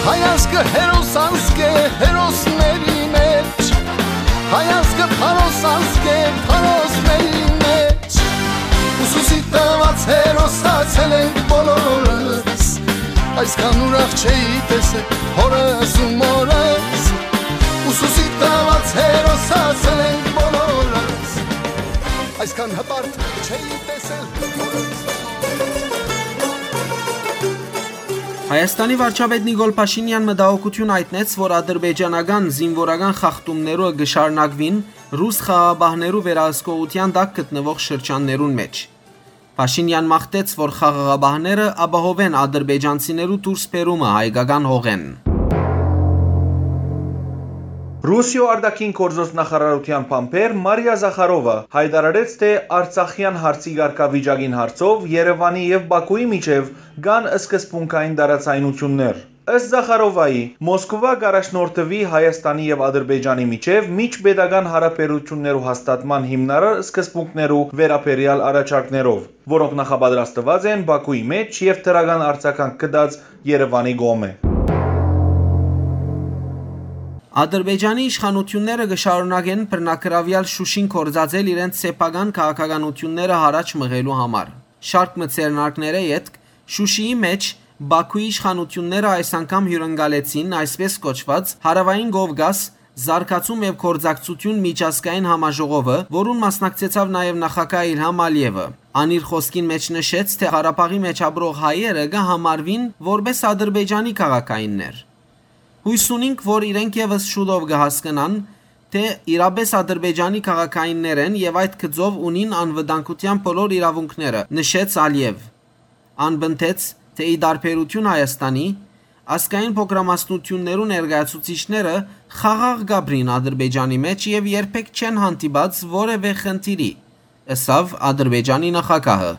Հայ ազգը հերոս ազգ է հերոսների մէջ, հայ ազգը փարոս ազգ է փարոսների մէջ, ուսուսի տված հերոսացել ենք բոլորս, այսքան ուրախ չէի տեսել հորս ու մորս, ուսուսի տված հերոսացել ենք բոլորս, այսքան հպարտ չէի տեսել հորս։ Հայաստանի վարչապետ Նիկոլ Փաշինեան մտահոգութիւն յայտնեց, որ ադրբեջանական զինուորական խախտումներու կը շարունակուին ռուս խաղաղապահներու վերահսկողութեան տակ գտնուող շրջաններուն մէջ։ Փաշինեան մաղթեց, որ խաղաղապահները ապահովեն ադրբեջանցիներու դուրս բերումը հայկական հողէն։ Ռուսիոյ արտաքին գործոց նախարարութեան բանբեր Մարիա Զախարովա յայտարարեց, թէ արցախեան հարցի կարգավիճակին հարցով Երեւանի եւ Բաքուի միջեւ կան սկզբունքային տարաձայնութիւններ։ Ըստ Զախարովայի, Մոսկովա կ'առաջնորդուի Հայաստանի եւ Ադրբեջանի միջեւ միջպետական յարաբերութիւններու հաստատման հիմնարար սկզբունքներու վերաբերեալ առաջարկներով, որոնք նախապատրաստուած են Բաքուի մէջ եւ դրական արձագանք գտած Երեւանի կողմէ։ Ադրբեջանի իշխանութիւնները կը շարունակեն բռնագրաւեալ Շուշին գործածել իրենց սեփական քաղաքականութիւնները յառաջ մղելու համար։ Շարք մը ձեռնարկներէ ետք Շուշիի մէջ Բաքուի իշխանութիւնները այս անգամ հիւրընկալեցին այսպես կոչուած Հարաւային Կովկաս զարգացում եւ գործակցություն միջազգային համաժողովը, որուն մասնակցեցաւ նաեւ նախագահ Իլհամ Ալիեւը։ Ան իր խօսքին մէջ նշեց, թէ Ղարաբաղի մէջ ապրող հայերը կը համարուին որպէս Ադրբեջանի քաղաքայիններ։ Յոյս ունինք, որ իրենք եւս շուտով կը հասկնան, թէ իրապէս Ադրբեջանի քաղաքայիններ են եւ այդ գծով ունին անվտանգութեան բոլոր իրաւունքները, նշեց Ալիեւ։ Ան պնդեց, թէ ի տարբերութիւն Հայաստանի, ազգային փոքրամասնութիւններու ներկայացուցիչները խաղաղ կ'ապրին Ադրբեջանի մէջ եւ երբեք չեն հանդիպած որեւէ խնդիրի, ըսաւ Ադրբեջանի նախագահը։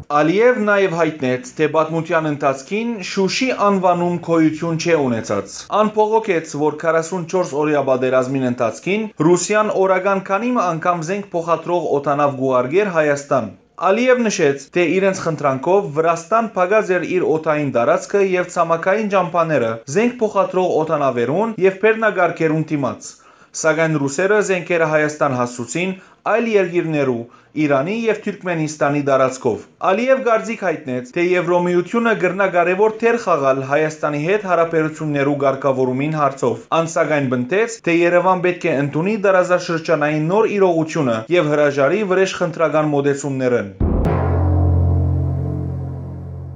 Ալիեւ նաեւ յայտնեց, թէ պատմութեան ընթացքին Շուշի անուանում գոյութիւն չէ ունեցած։ Ան բողոքեց, որ քառասունչորս օրեայ պատերազմին ընթացքին Ռուսիան օրական քանի մը անգամ զենք փոխադրող օդանաւ կ'ուղարկէր Հայաստան։ Ալիեւ նշեց, թէ իրենց խնդրանքով Վրաստան փակած էր իր օդային տարածքը եւ ցամաքային ճամբաները զենք փոխադրող օդանաւերուն եւ բեռնակառքերուն դիմաց։ Սակայն ռուսերը զենքերը Հայաստան հասցուցին այլ երկիրներու, Իրանի եւ Թուրքմենիստանի տարածքով։ Ալիեւ կարծիք յայտնեց, թէ Եվրոմիութիւնը կրնայ կարեւոր դեր խաղալ Հայաստանի հետ յարաբերութիւններու կարգաւորումին հարցով։ Ան սակայն պնդեց, թէ Երեւան պէտք է ընդունի տարածաշրջանային նոր իրողութիւնը եւ հրաժարի վրէժխնդրական մօտեցումներէն։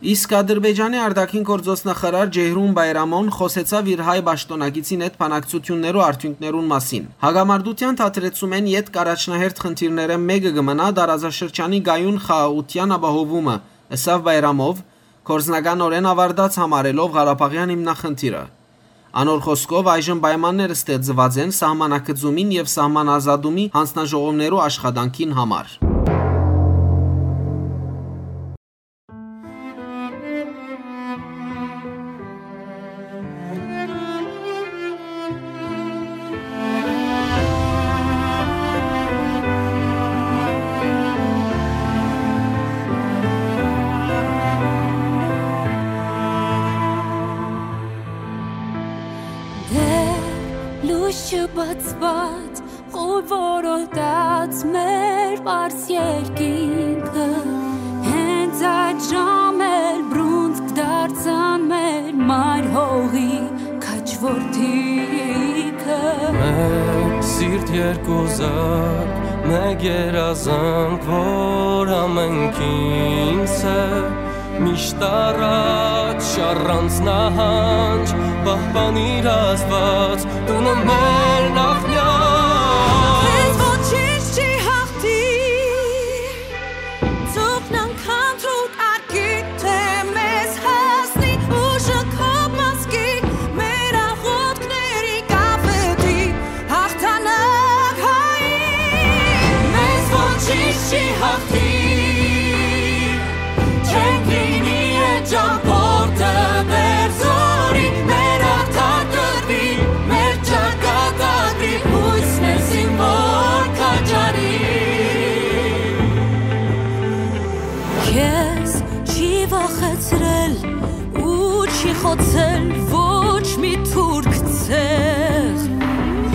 Իսկ Ադրբեջանի արտաքին գործոց նախարար Ջեյհրուն Բայրամոն խօսեցաւ իր հայ պաշտօնակիցին հետ բանակցութիւններու արդիւնքներուն մասին։ Հակամարտութեան դադրեցումէն ետք առաջնահերթ խնդիրներէն մէկը կը մնայ տարածաշրջանի կայուն խաղաղութեան ապահովումը, ըսաւ Բայրամով, գործնականօրէն աւարտած համարելով Ղարաբաղեան հիմնախնդիրը։ Անոր խօսքով, այժմ պայմաններ ստեղծուած են սահմանագծումին եւ սահմանազատումի յանձնաժողովներու աշխատանքին համար։ Դեռ լույս չբացուած, խուլ որոտաց մեր պարզ երկինքը, հենց այդ ժամեր բռունցք դարձան մեր մայր հողի քաջ որդիքը։ Մէկ սիրտ, երկու զարկ, մէկ երազանք, որ ամենքին սեր, միշտ առաջ, առանց նահանջ, պահպանիր Աստուած տունը մեր նախնյալ։ Քեզ ոչինչ չի հաղթի, ծուխն անգամ դու կարկի, թե մեզ հասնի ուժը քո մազկի, մեր աղոթքների կապետի հաղթանակ հայի, մեզ ոչինչ չի հաղթի, չենք լինի այդ ճամբորդը դեռ զորի, մեր արդար կռվի, մեր ճակատագրի, հույս մեզին որ քաջարի։ Քեզ չի վախեցրել ու չի խոցել ոչ մի թուրք ցեղ։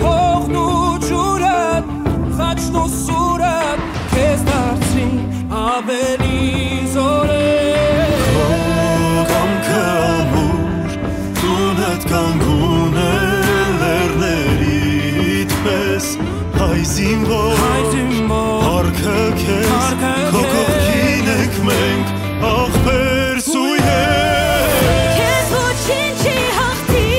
Հողն ու ջուրը, խաչն ու սուրը քեզ դարձրին ավելի զորեղ։ Քո կամքը ամուր, տունդ կանգուն է լեռներիդ պես, հայ զինվոր, հայ զինվոր, փառքը քեզ, փառքը քո քեզ, կողքին ենք մենք, աղբեր սույհեր։ Քեզ ոչինչ չի հաղթի,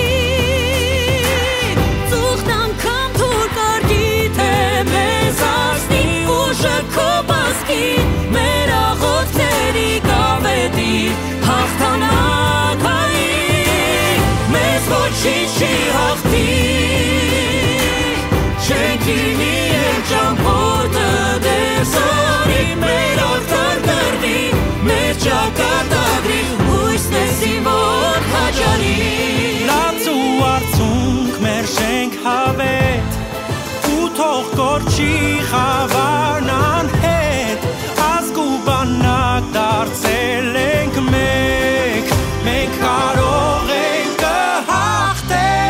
ծուխն անգամ դուր կարկի, թե մեզ հասնի ուժը քո մազկի, մեր աղոթքների կապետի հաղթանակ հայի, մեզ ոչինչ չի հաղթի, չենք լինի այդ ճամբորդը դեռ զորի, մեր արդար կռվի, մեր ճակատագրի, հույս մեզի որ քաջարի։ Լաց ու արցունք մեր շենք հավետ, ու թող կորչի խավարն անհետ, ազգ ու բանակ դարձել ենք մեկ, մենք կարող ենք, կը հաղթենք։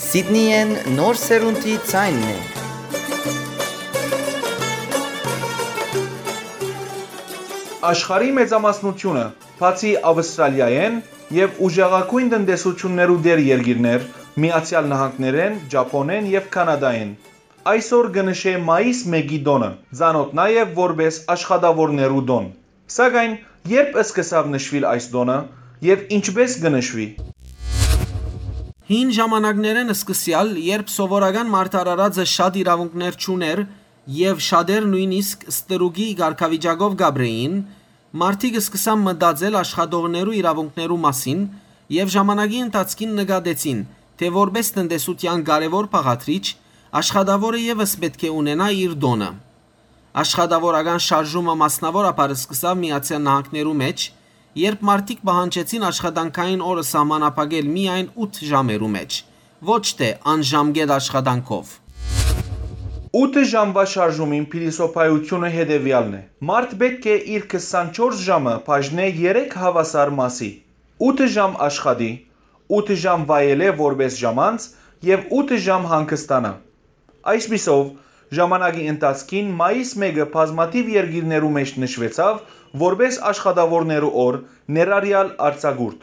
Սիդնիեն նոր սերունդի ձայնն է։ Աշխարհի մեծամասնությունը, բացի Աւստրալիայէն եւ ուժեղագոյն տնտեսութիւններու տեր երկիրներ, Միացեալ Նահանգներէն, Ճափոնէն եւ Քանադայէն, այսօր կը նշէ մայիս մէկի տօնը, ծանօթ նաեւ որպէս աշխատաւորներու տօն։ Սակայն ե՞րբ սկսաւ նշուիլ այս տօնը եւ ինչպէս կը նշուի։ Հին ժամանակներէն սկսեալ, երբ սովորական մարդ արարածը շատ իրաւունքներ չունէր եւ շատեր նոյնիսկ ստրուկի կարգավիճակով կ'ապրէին, մարդիկ սկսան մտածել աշխատողներու իրաւունքներու մասին եւ ժամանակի ընթացքին նկատեցին, թէ որպէս տնտեսութեան կարեւոր բաղադրիչ, աշխատաւորը եւս պէտք է ունենայ իր տօնը։ Աշխատաւորական շարժումը մասնաւորաբար սկսաւ Միացեալ Նահանգներու մէջ, երբ մարդիկ պահանջեցին աշխատանքային օրը սահմանափակել միայն ութ ժամերու մէջ, ոչ թէ անժամկետ աշխատանքով։ Ութ ժամուայ շարժումին փիլիսոփայութիւնը հետեւեալն է. մարդ պէտք է իր քսանչորս ժամը բաժնէ երեք հաւասար մասի, ութ ժամ աշխատի, ութ ժամ վայելէ որպէս ժամանց եւ ութ ժամ հանգստանայ։ Այսպիսով, ժամանակի ընթացքին մայիս մէկը բազմաթիւ երկիրներու մէջ նշուեցաւ որպէս աշխատաւորներու օր, ներառեալ արձակուրդ։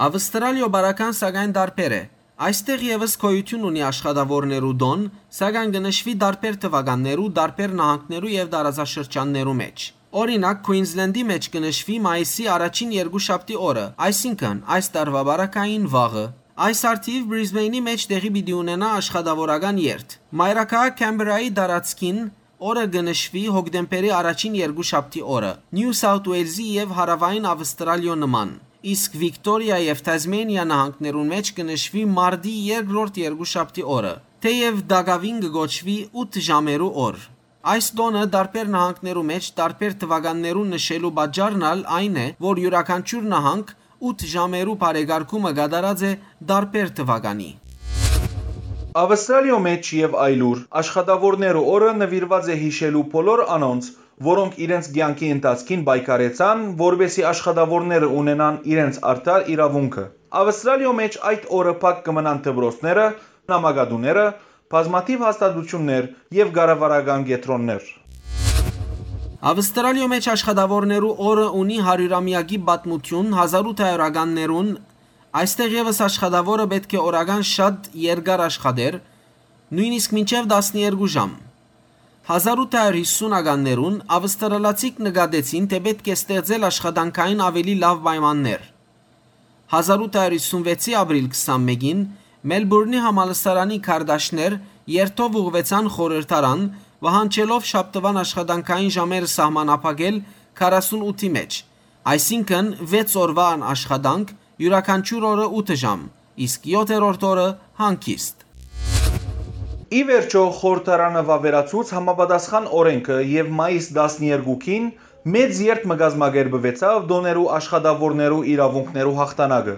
Աւստրալիոյ բարական սակայն տարբեր է։ Այստեղ եւս գոյութիւն ունի աշխատաւորներու տօն, սակայն կը նշուի տարբեր թուականներու, տարբեր նահանգներու եւ տարածաշրջաններու մէջ։ Օրինակ, Քուինզլենդի մէջ կը նշուի մայիսի առաջին երկուշաբթի օրը, այսինքն՝ այս տարուայ բարակային վաղը։ Այս առթիւ Բրիզբէյնի մէջ տեղի պիտի ունենայ աշխատաւորական երթ։ Մայրաքաղաք Քեմբերայի տարածքին օրը կը նշուի հոկտեմբերի առաջին երկուշաբթի օրը, Նիու Սաութ Ուէյլզի եւ Հարաւային Աւստրալիոյ նման, իսկ Վիկտորիա եւ Թազմենիա նահանգներուն մէջ կը նշուի մարտի երկրորդ երկուշաբթի օրը, թէեւ տակաւին կը կոչուի ութ ժամերու օր։ Այս տօնը տարբեր նահանգներու մէջ տարբեր թուականներուն նշելու պատճառն ալ այն է, որ իւրաքանչիւր նահանգ ութ ժամերու բարեկարգումը կատարած է տարբեր թուականի։ Աւստրալիոյ մէջ եւ այլուր աշխատաւորներու օրը նուիրուած է յիշելու բոլոր անոնց, որոնք իրենց կեանքի ընթացքին պայքարեցան, որպէսզի աշխատաւորները ունենան իրենց արդար իրաւունքը։ Աւստրալիոյ մէջ այդ օրը փակ կը մնան դպրոցները, նամակատուները, բազմաթիւ հաստատութիւններ եւ կառավարական կեդրոններ։ Աւստրալիոյ մէջ աշխատաւորներու օրը ունի հարիւրամեակի պատմութիւն, հազար ութ հարիւրականներուն, այստեղ եւս աշխատաւորը պէտք է օրական շատ երկար աշխատէր, նոյնիսկ մինչեւ տասներկու ժամ։ Հազար ութ հարիւր յիսունականներուն աւստրալացիք նկատեցին, թէ պէտք է ստեղծել աշխատանքային աւելի լաւ պայմաններ։ Հազար ութ հարիւր յիսուն վեցի ապրիլ քսանմէկին Մելբուրնի համալսարանի քարտաշներ երթով ուղղուեցան խորհրդարան, պահանջելով շաբթուան աշխատանքային ժամերը սահմանափակել քառասուն ութի մէջ, այսինքն՝ վեց օրուան աշխատանք, իւրաքանչիւր օրը ութ ժամ, իսկ եօթերորդ օրը՝ հանգիստ։ Ի վերջոյ, խորհրդարանը վաւերացուց համապատասխան օրէնքը եւ մայիս տասներկուին մեծ երթ մը կազմակերպուեցաւ տօներու աշխատաւորներու իրաւունքներու յաղթանակը։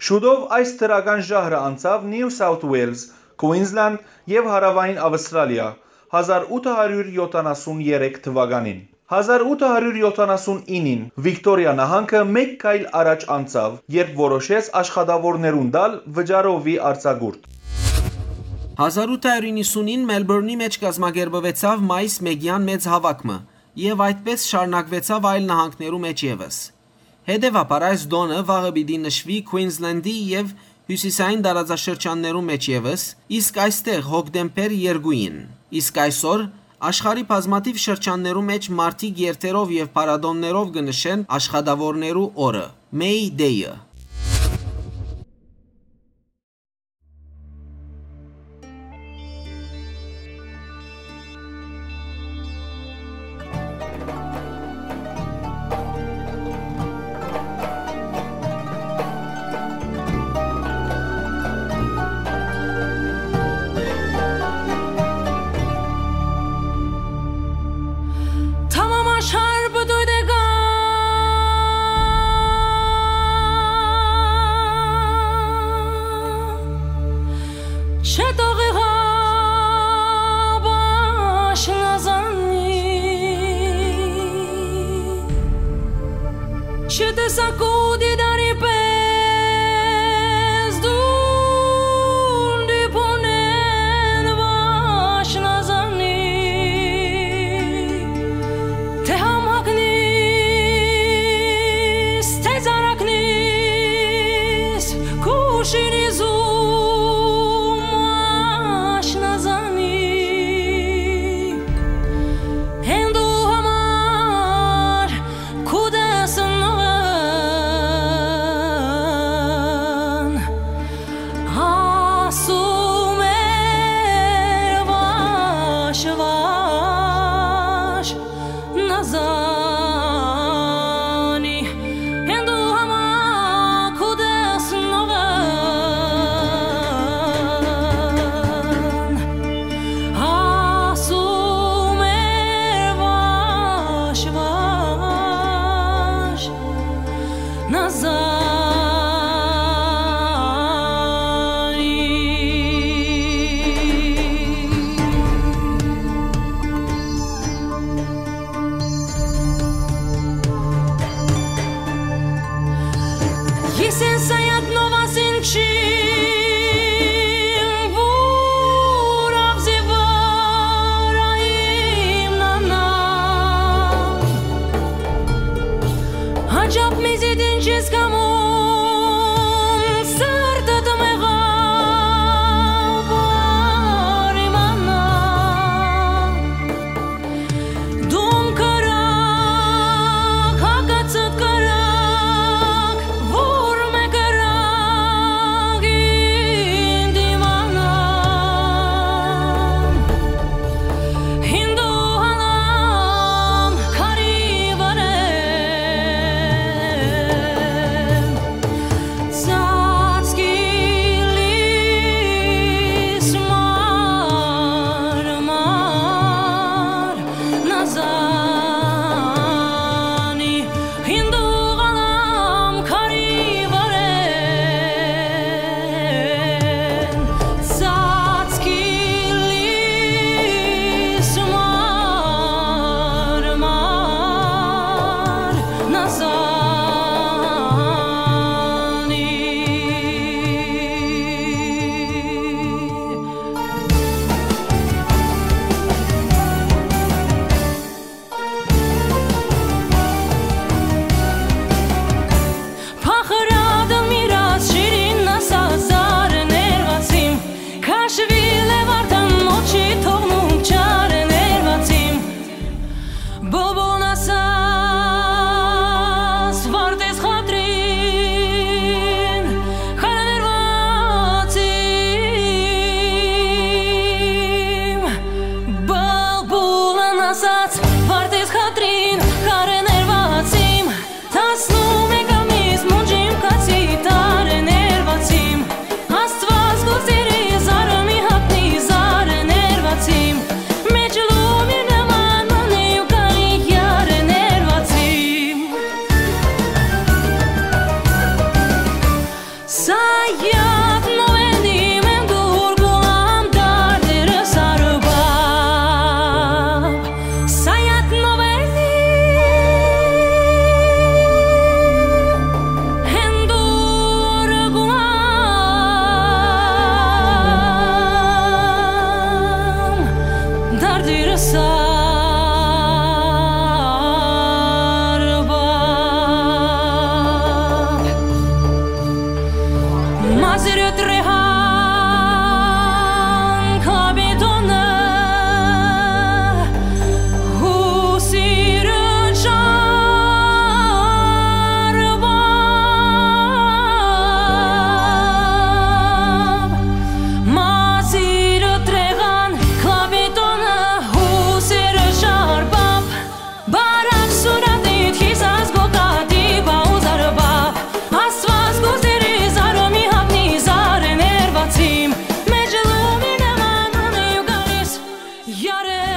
Շուտով այս դրական ժահրը անցաւ Նիու Սաութ Ուէյլզ, Քուինզլանդ եւ Հարաւային Աւստրալիա հազար ութ հարիւր յոթանասուն երեք թուականին։ Հազար ութ հարիւր յոթանասուն ինին Վիկտորիա նահանգը մէկ քայլ առաջ անցաւ, երբ որոշեց աշխատաւորներուն տալ վճարովի արձակուրդ։ Հազար ութ հարիւր իննսունին Մելբուրնի մէջ կազմակերպուեցաւ մայիս մէկեան մեծ հաւաք մը, եւ այդպէս շարունակուեցաւ այլ նահանգներու մէջ եւս։ Հետեւաբար, այս տօնը վաղը պիտի նշուի Քուինզլենդի եւ հիւսիսային տարածաշրջաններու մէջ եւս, իսկ այստեղ՝ հոկտեմբեր երկուին։ Իսկ այսօր, աշխարհի բազմաթիւ շրջաններու մէջ մարդիկ երթերով եւ փառատօներով կը նշեն աշխատաւորներու օրը՝ May Day-ը։ Tamam aşar bu duydaga. Çetoği başına zanni. Çete sakudi dari pezdu. Նազանի։ Ես են Սայաթ Նովասին չիմ, որ ավզի վրայ իմ նանա։ Հաճապ մեզի դին չես կամում, սրտդ մեղաւ, որ իմանա։ Դուն կրակ, հակածդ կրակ, որ մը կրակ ինդ իմանամ։ Հինդու հալամ քարի վրեն, ծածկի լիս մարմար Նազանի, հինդու հալամ քարի վրեն, ծածկի լիս մարմար Նազանի։ Փախրատը միրաս շիրին ասած արներվածիմ, քաշվիլ է վարդան մոչի թողնուկ չարներվածիմ։ Բուլբուլն ասաց վարդես խատրին, քարներվածիմ։ Բուլբուլն ասաց վարդես խատրին, քարներվածիմ, տասնմեկ ամիս մունջիմ կացի տարեներվածիմ, Աստված կուզերի զարմի հատնի զարեներվածիմ, մեջ լումի նման մնի ու կարի յարեներվածիմ։ Սայաթ նովենի մեն դուր գուլամ դարդերը սարուբա Սայաթ նովելի հենդուրը գուամ դարդիրը սարբապ Մազիրը տրեհան կապիտոնը Հուսիրը չարուամ, մազիրը տրեղան, կապիտոնը հուսիրը չարուամ, բարակ սուրատիտ, խիսաս գոկատի բաուզարուամ, Աստված գոզերի զարոմի հապնի զարեներվածիմ, մեջ լումի նման մնի ու գալիս Յարեներվածի։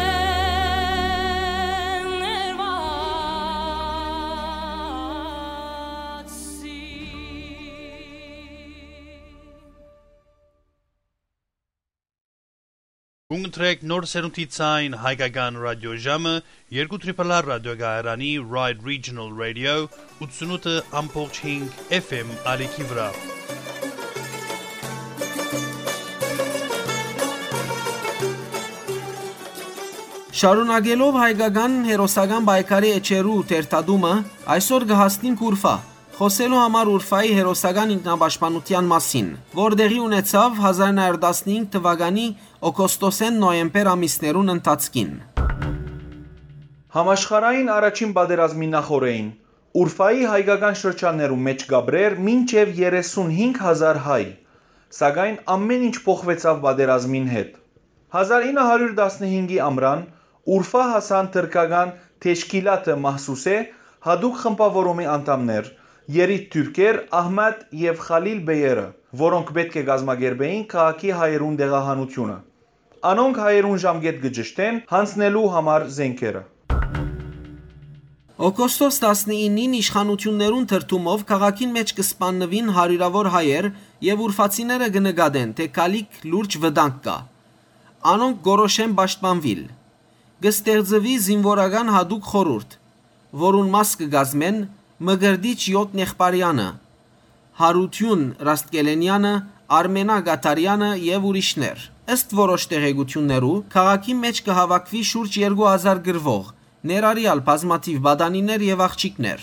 Կունգընտրեք նոր սերունդի ցայն հայկական ռադիոժամը երկու Triple R ռադիոկայարանի Ride Regional Radio ութսունութը ամբողջ հինգ F M ալիքի վրայ։ Շարունակելով հայկական հերոսական պայքարի էջերու թերթատումը, այսօր կը հասնենք Ուրֆա, խօսելու համար Ուրֆայի հերոսական ինքնապաշտպանութեան մասին, որ տեղի ունեցաւ հազար նոյ հարյուր տասնհինգ թվականի օգոստոսէն նոյեմբեր ամիսներուն ընթացքին։ Համաշխարհային առաջին պատերազմի նախօրեին Ուրֆայի հայկական շրջաններու մէջ կապրէր մինչեւ երեսունհինգ հազար հայ, սակայն ամէն ինչ փոխուեցաւ պատերազմին հետ։ Հազար ինը հարիւր տասնհինգի ամրան Ուրֆա հասան թրքական Թեշքիլաթը Մահսուսէ յատուկ խմբաւորումի անդամներ, երիտթուրքեր Ահմետ եւ Խալիլ բեյերը, որոնք պէտք է կազմակերպէին քաղաքի հայերուն տեղահանութիւնը։ Անոնք հայերուն ժամկէտ կը ճշդեն յանձնելու համար զէնքերը։ Օգոստոս տասնինին իշխանութիւններուն թրթումով քաղաքին մէջ կը սպաննուին հարիւրաւոր հայեր եւ ուրֆացիները կը նկատեն, թէ գալիք լուրջ վտանգ կայ։ Անոնք կորոշեն պաշտպանուիլ։ Կը ստեղծուի զինուորական յատուկ խորհուրդ, որուն մաս կը կազմեն Մկրտիչ Յոթ Նեղբարեանը, Յարութիւն Ռաստկելենեանը, Արմենա Կաթարեանը եւ ուրիշներ։ Ըստ որոշ տեղեկութիւններու, քաղաքին մէջ կը հաւաքուի շուրջ երկու հազար կռուող, ներառեալ բազմաթիւ պատանիներ եւ աղջիկներ։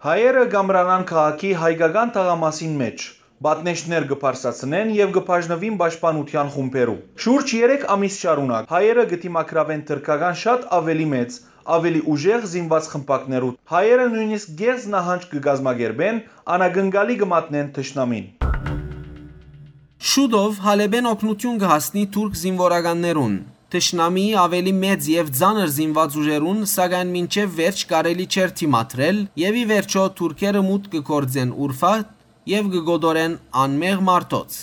Հայերը կ'ամրանան քաղաքի հայկական թաղամասին մէջ, պատնեշներ կը բարձրացնեն եւ կը բաժնուին պաշտպանութեան խումբերու։ Շուրջ երեք ամիս շարունակ հայերը կը դիմագրաւեն թրքական շատ աւելի մեծ, աւելի ուժեղ զինուած խմբակներու։ Հայերը նոյնիսկ կեղծ նահանջ կը կազմակերպեն, անակնկալի կը մատնեն թշնամին։ Շուտով Հալէպէն օգնութիւն կը հասնի թուրք զինուորականներուն, թշնամիի աւելի մեծ եւ ծանր զինուած ուժերուն, սակայն մինչեւ վերջ կարելի չէր դիմադրել եւ ի վերջոյ թուրքերը մուտք կը գործեն Ուրֆա եւ կը կոտորեն անմեղ մարդոց։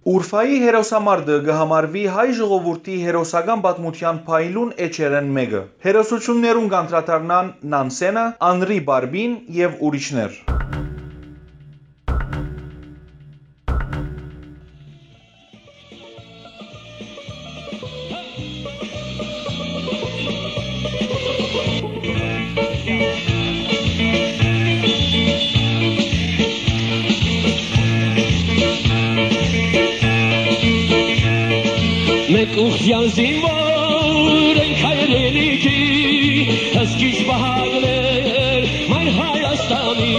Ուրֆայի հերոսամարտը կը համարուի հայ ժողովուրդի հերոսական պատմութեան փայլուն էջերէն մէկը։ Հերոսութիւններուն կ'անդրադառնան Նանսենը, Անրի Բարբին եւ ուրիշներ։ Մենք ուխտեան զինվոր ենք հայրենիքի, հսկիչ պահակներ մայր Հայաստանի։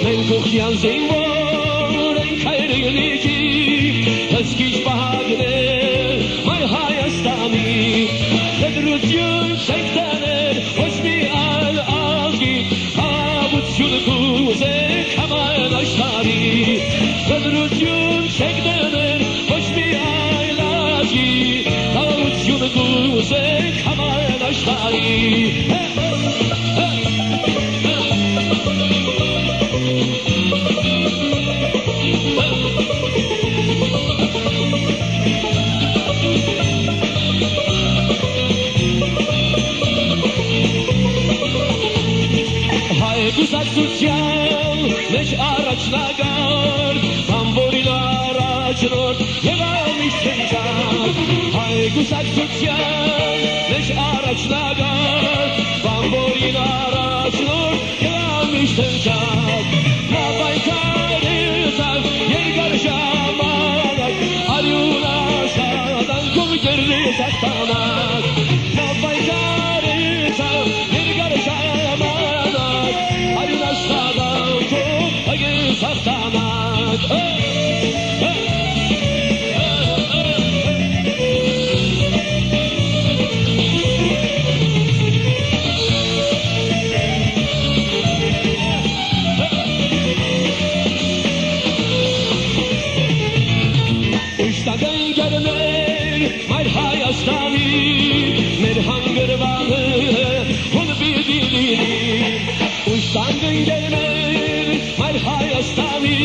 Մենք ուխտեան զինվոր ենք հայրենիքի, հսկիչ պահակներ մայր Հայաստանի։ Խտրություն չեք տաներ ոչ մի այլ ազգի, խաղաղութիւն կ'ուզենք համայն աշխարհի։ Խտրություն չեք տաներ ոչ մի այլ ազգի, խաղաղութիւն կ'ուզենք համայն աշխարհի։ Հայ կուսակցութեան մէջ առաջնակարգ, բանվորին առաջնորդ եղայ միշտ հնչակ։ Հայ կուսակցութեան մէջ առաջնակարգ, բանվորին առաջնորդ եղայ միշտ հնչակ։ Նա պայքարեցաւ երկար ժամանակ, արիւն աշխատանքով կերտեց հաղթանակ։ Նա պայքարեցաւ երկար ժամանակ, արիւն աշխատանքով կերտեց հաղթանակ։ Ուշտական գերներ մայր Հայաստանի, մեր հանգրուանը հոն պիտի լինի։ Ուշտական գերներ մայր Հայաստանի,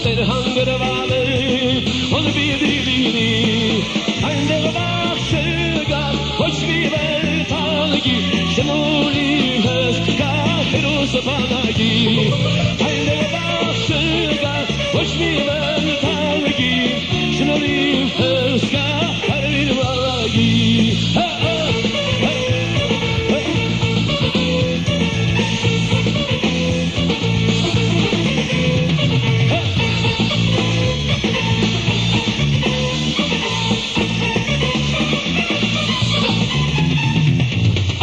մեր հանգրուանը հոն պիտի լինի։ Այնտեղ վախ չկայ ոչ մի վեր թալկի, շնորհի հսկայ հերոս բանակի։ Այնտեղ վախ չկայ ոչ մի վեր թալկի, շնորհի հսկայ հերոս բանակի։ Հա, հա, հա, հա։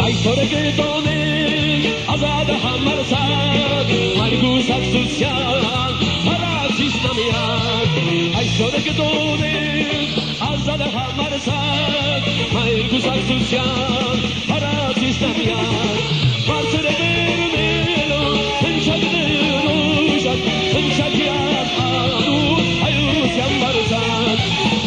Այսօր կտոնենք ազատ համարձակ, մայր կուսակցութեան փառատիչ նամիակ։ Այսօր կտոնենք ազատ համարձակ, մայր կուսակցութեան փառատիչ նամիակ։ Բարձր բեռնելով հնչակներ ուժակ, հնչակեան անուն հայության բարձակ։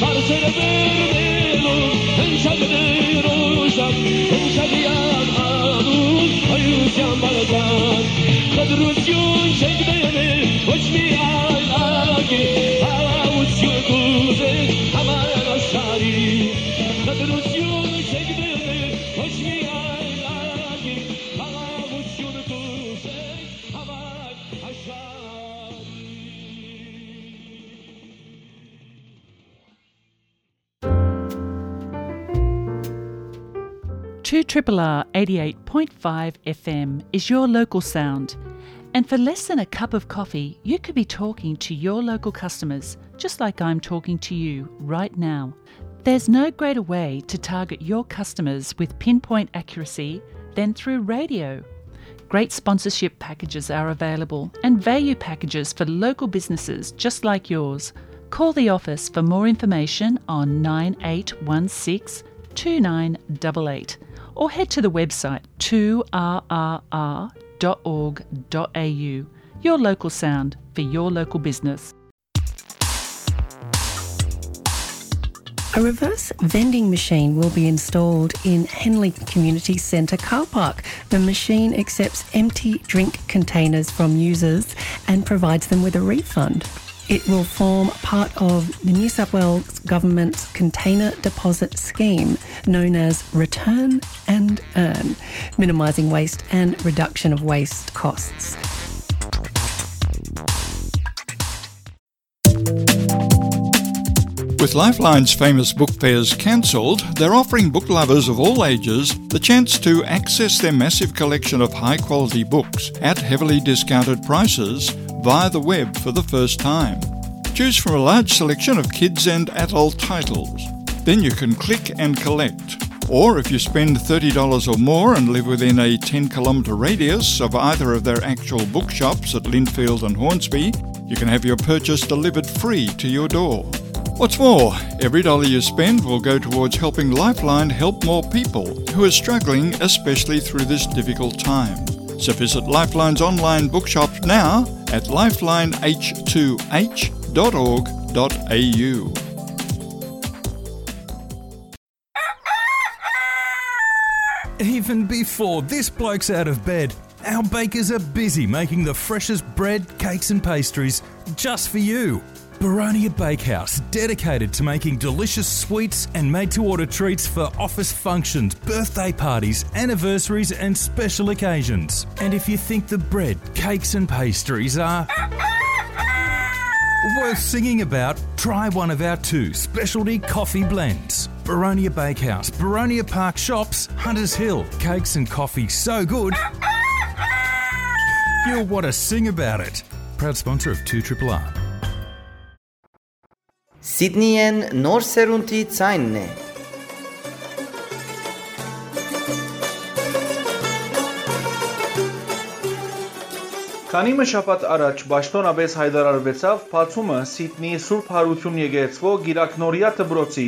Բարձր բեռնելով հնչակներ ուժակ, հնչակեան անուն հայության բարձակ։ Խտրություն չեք տաներ ոչ մի այլ ակի, խաղաղություն կ'ուզենք համայն աշխարհի։ Խտրություն չեք տաներ ոչ մի այլ two triple R eighty-eight point five F M is your local sound. And for less than a cup of coffee, you could be talking to your local customers, just like I'm talking to you right now. There's no greater way to target your customers with pinpoint accuracy than through radio. Great sponsorship packages are available and value packages for local businesses just like yours. Call the office for more information on nine eight one six two nine double eight or head to the website two R R R dot org dot A U. Your local sound for your local business. A reverse vending machine will be installed in Henley Community Centre car park. The machine accepts empty drink containers from users and provides them with a refund. It will form part of the New South Wales Government's container deposit scheme, known as Return and Earn, minimising waste and reduction of waste costs. With Lifeline's famous book fairs cancelled, they're offering book lovers of all ages the chance to access their massive collection of high quality books at heavily discounted prices via the web for the first time. Choose from a large selection of kids and adult titles. Then you can click and collect. Or if you spend thirty dollars or more and live within a ten kilometre radius of either of their actual bookshops at Lindfield and Hornsby, you can have your purchase delivered free to your door. What's more, every dollar you spend will go towards helping Lifeline help more people who are struggling, especially through this difficult time. So visit Lifeline's online bookshop now at lifeline h two h dot org dot a u. Even before this bloke's out of bed, our bakers are busy making the freshest bread, cakes, and pastries just for you. Baronia Bakehouse, dedicated to making delicious sweets and made to order treats for office functions, birthday parties, anniversaries, and special occasions. And if you think the bread, cakes, and pastries are worth singing about, try one of our two specialty coffee blends. Baronia Bakehouse, Baronia Park Shops, Hunters Hill. Cakes and coffee so good, you'll want to sing about it. Proud sponsor of two triple R. Սիդնիեն նոր սերունդի ձայնն է։ Քանի մը շաբաթ առաջ պաշտօնապէս յայտարարուեցաւ բացումը Սիդնիի Սուրբ Հարություն եկեղեցւոյ Կիրակնորիա դպրոցի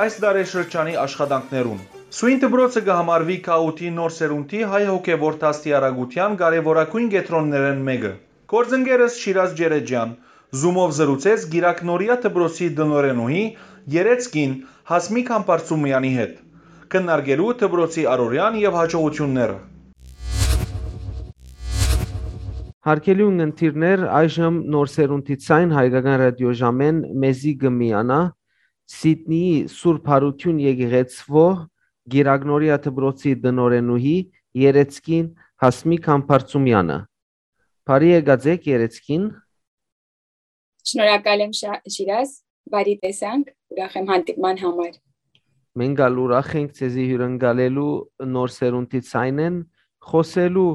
այս տարեշրջանի աշխատանքներուն։ Սոյն դպրոցը կը համարուի գաղութի նոր սերունդի հայ հոգեւոր դաստիարակութեան կարեւորագոյն կեդրոններէն մէկը։ Գործընկերս Շիրազ Ջերեջեան Zoom-ով զրուցեց Կիրակնորիա դպրոցի տնօրենուհի Երեցկին Հասմիկ Համբարձումեանի հետ, քննարկելու դպրոցի առօրեան եւ յաջողութիւնները։ Հարգելի ունգընտիրներ, այժմ Նոր Սերունդի Ցայն հայկական ռադիոժամէն մեզի կը միանայ Սիդնիի Սուրբ Յարութիւն եկեղեցւոյ Կիրակնորիա դպրոցի տնօրենուհի Երեցկին Հասմիկ Համբարձումեանը։ Բարի եկած էք, Երեցկին։ Շնորհակալ եմ, Շա-, Շիրազ, բարի տեսանք, ուրախ եմ հանդիպման համար։ Մենք ալ ուրախ ենք ձեզի հյուրընկալելու Նոր Սերունդի Ցայնէն, խօսելու,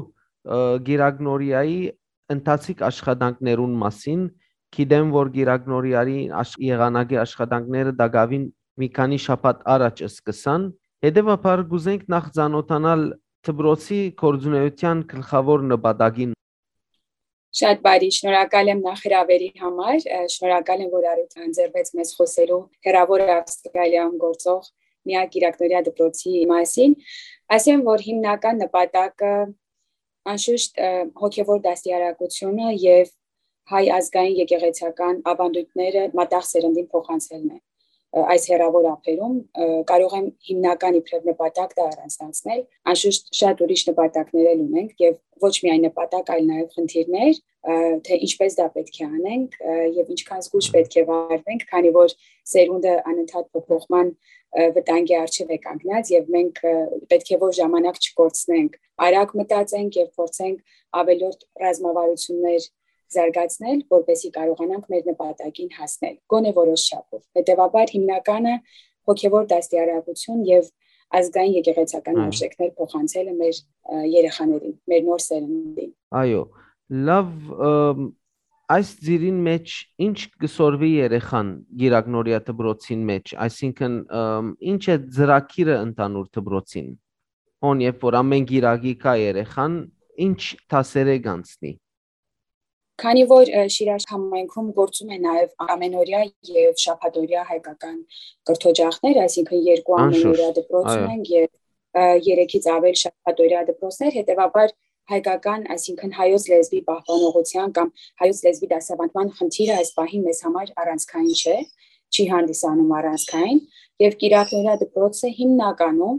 ը, Կիրակնորիայի ընթացիկ աշխատանքներուն մասին։ Գիտեմ, որ Կիրակնորիայի աշ-, եղանակի աշխատանքները տակաւին մի քանի շաբաթ առաջ սկսան։ Հետեւաբար կուզենք նախ ծանոթանալ դպրոցի գործունեության գլխաւոր նպատակին։ Շատ բարի, շնորհակալ եմ նախ հրավերի համար, ը, շնորհակալ եմ, որ առիթ ընձեռվեց մեզ խօսելու հեռաւոր Ավստրալիայում գործող միակ Կիրակնորիա դպրոցի մասին։ Ասեմ, որ հիմնական նպատակը անշուշտ, ը, հոգեվոր դաստիարակությունը եւ հայ ազգային եկեղեցական ավանդույթները մատաղ սերնդին փոխանցելն է, ը, այս հեռաւոր ափերում, ը, կարող եմ հիմնական իբրեւ նպատակ դա առանձնացնել։ Անշուշտ շատ ուրիշ նպատակներ էլ ունենք եւ ոչ միայն նպատակ, այլ նաեւ խնդիրներ, ը, թե ինչպես դա պետք է անենք, ը, եւ ինչքան զգույշ պետք է վարվենք, քանի որ սերունդը անընդհատ փոփոխման, ը, վտանգի առջեւ է կանգնած եւ մենք, ը, պետք է որ ժամանակ չկորցնենք, արագ մտածենք եւ փորձենք ավելորդ ռազմավարություններ զարգացնել, որպեսզի կարողանանք մեր նպատակին հասնել, գոնե որոշ չափով։ Հետևաբար հիմնականը հոգևոր դաստիարակություն եւ ազգային եկեղեցական արժեքներ փոխանցելը մեր երեխաներին, մեր նոր սերնդին։ Այո, լավ, այս ծիրին մեջ ինչ կը սորվի երեխան գիրագնորիա դպրոցին մեջ, այսինքն ինչ է ծրագիրը ընդհանուր դպրոցին, հոն երբ որ ամեն գիրագի կա երեխան, ինչ դասերէ կանցնի։ Քանի որ Շիրաժ համայնքում գործում է նաև ամենօրյա և շաբաթօրյա հայկական կրթօջախներ, այսինքն երկու ամենօրյա դպրոց ունենք և երեքից ավել շաբաթօրյա դպրոցներ, հետևաբար հայկական, այսինքն հայոց լեզվի պահպանողության կամ հայոց լեզվի դասավանդման խնդիրը այս պահին մեզ համար առանցքային չէ, չի հանդիսանում առանցքային, և կիրակնօրյա դպրոցը հիմնականում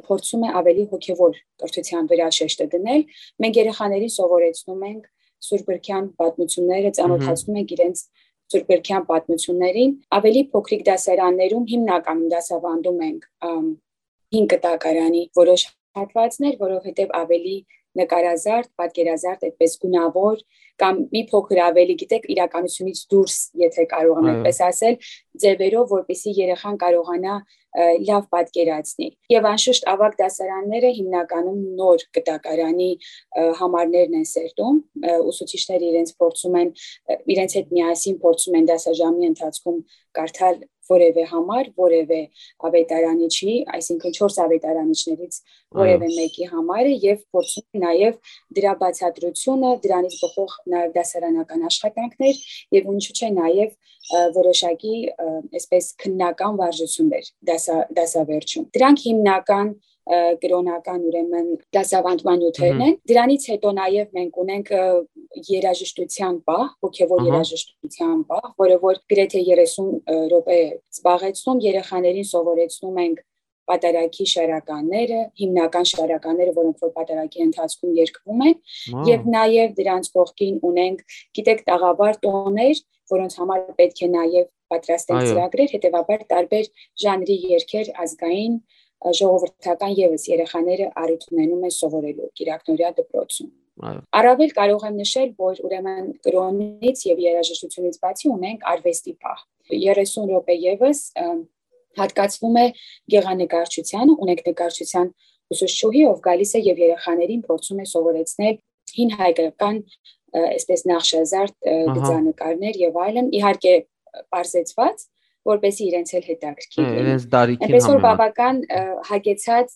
փորձում է ավելի հոգևոր կրթության վրա շեշտը դնել։ Մենք երեխաներին սովորեցնում ենք Սուրբ Գրքեան պատմությունները, ծանոթացնում ենք իրենց Սուրբ Գրքեան պատմություններին։ Ավելի փոքրիկ դասարաններում հիմնականում դասավանդում ենք հին կտակարանի որոշ հատվածներ, որովհետև ավելի նկարազարդ, պատկերազարդ, այդպես գունավոր կամ մի փոքր ավելի, գիտեք, իրականությունից դուրս, եթե կարող եմ այդպես ասել, ձևերով, որպեսզի երեխան կարողանա լավ պատկերացնի։ Եվ անշուշտ ավագ դասարանները հիմնականում նոր կտակարանի համարներն են սերտում, ուսուցիչները իրենց փորձում են, իրենց հետ միասին փորձում են դասաժամի ընթացքում կարդալ որևէ համար, որևէ ավետարանիչի, այսինքն չորս ավետարանիչներից որևէ մեկի համարը, և փորձում են նաև դրա բացատրությունը, դրանից բխող նաև դասարանական աշխատանքներ, և ինչու՞ չէ նաև որոշակի այսպես քննական վարժություններ դասա, դասավերջում։ Դրանք հիմնական կրօնական, ուրեմն դասավանդման նիւթերն են։ Դրանից հետո նաև մենք ունենք երաժշտության պահ, հոգևոր երաժշտության պահ, որը որ գրեթե երեսուն րոպե զբաղեցնում, երեխաներին սովորեցնում ենք պատարագի շարականները, հիմնական շարականները, որոնք որ պատարագի ընթացքում երգվում են, և նաև դրանց կողքին ունենք, գիտեք, տաղավար տոներ, որոնց համար պետք է նաև պատրաստենք ծրագրեր, հետևաբար տարբեր ժանրի երգեր ազգային, ժողովրդական ևս երեխաները առիթ ունենում են սովորելու կիրակնօրյա դպրոցում։ Առավել կարող եմ նշել, որ ուրեմն կրոնից և երաժշտությունից բացի ունենք արվեստի պահ։ Երեսուն րոպե ևս հատկացվում է գեղանկարչությանը, ունենք նկարչության ուսուցչուհի, ով գալիս է և երեխաներին փորձում է սովորեցնել հին հայկական, այսպես նախշազարդ գծանկարներ և այլն, իհարկե պարզեցված, որպեսզի իրենց էլ հետաքրքիր լինի։ Իրենց դարիքին Այնպես որ բավական հագեցած,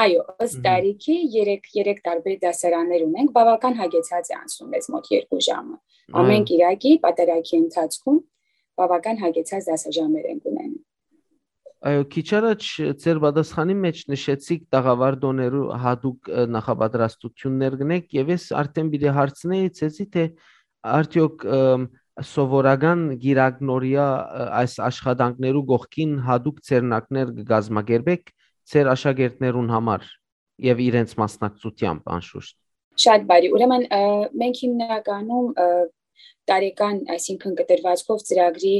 այո, ըստ դարիքի երեք, երեք տարբեր դասարաններ ունենք, բավական հագեցած է անցնում մեզ մոտ երկու ժամը։ Ամեն կիրակի պատարագի ընթացքում բավական հագեցած դասաժամեր ենք ունենում։ Այո, քիչ առաջ ձեր պատասխանի մեջ նշեցիք տաղավար տոներու հատուկ նախապատրաստություններ կնեք, և ես արդեն պիտի հարցնեի ձեզի, թե արդյոք սովորական գիրագնորիա այս աշխատանքներու կողքին հատուկ ձեռնարկներ կը կազմակերպեք ձեր աշակերտներուն համար և իրենց մասնակցությամբ անշուշտ։ Շատ բարի։ Ուրեմն մենք հիմնականում տարեկան, այսինքն կտրվածքով ծրագրի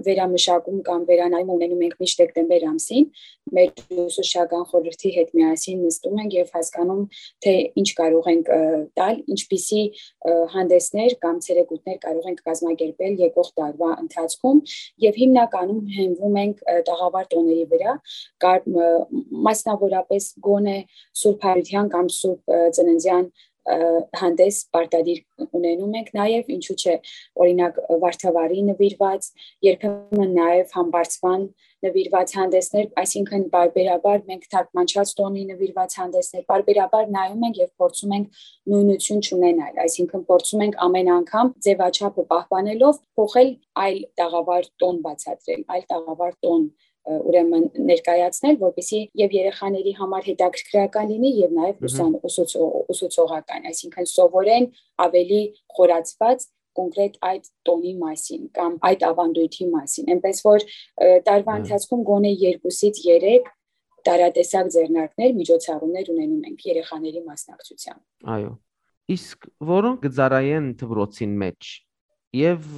վերամշակում կամ վերանայում ունենում ենք միշտ դեկտեմբեր ամսին։ Մեր ուսուցչական խորհրդի հետ միասին նստում ենք և հասկանում, թե ինչ կարող ենք տալ, ինչպիսի հանդեսներ կամ ցերեկույթներ կարող ենք կազմակերպել եկող տարվա ընթացքում, և հիմնականում հենվում ենք տաղավար տոների վրա, մասնավորապես գոնե Սուրբ Հարության կամ Սուրբ Ծննդյան հանդես պարտադիր ունենում ենք նաև, ինչու՞ չէ, օրինակ, Վարդավառի նվիրված, երբեմն նաև Համբարձման նվիրված հանդեսներ, այսինքն պարբերաբար մենք թարգմանչած տոնի նվիրված հանդեսներ պարբերաբար նայում ենք և փորձում ենք նույնություն չունենալ, այսինքն փորձում ենք ամեն անգամ ձևաչափը պահպանելով փոխել այլ տաղավար տոն բացատրել, այլ տաղավար տոն ուրեմն ներկայացնել, որպեսզի և երեխաների համար հետաքրքրական լինի և նաև ուսուցողական, այսինքն սովորեն ավելի խորացված կոնկրետ այդ տոնի մասին կամ այդ ավանդույթի մասին, այնպես որ տարվա ընթացքում գոնե երկուսից երեք տարատեսակ ձեռնարկներ, միջոցառումներ ունենում ենք երեխաների մասնակցությամբ։ Այո։ Իսկ որոնք կծառայեն դպրոցին մեջ և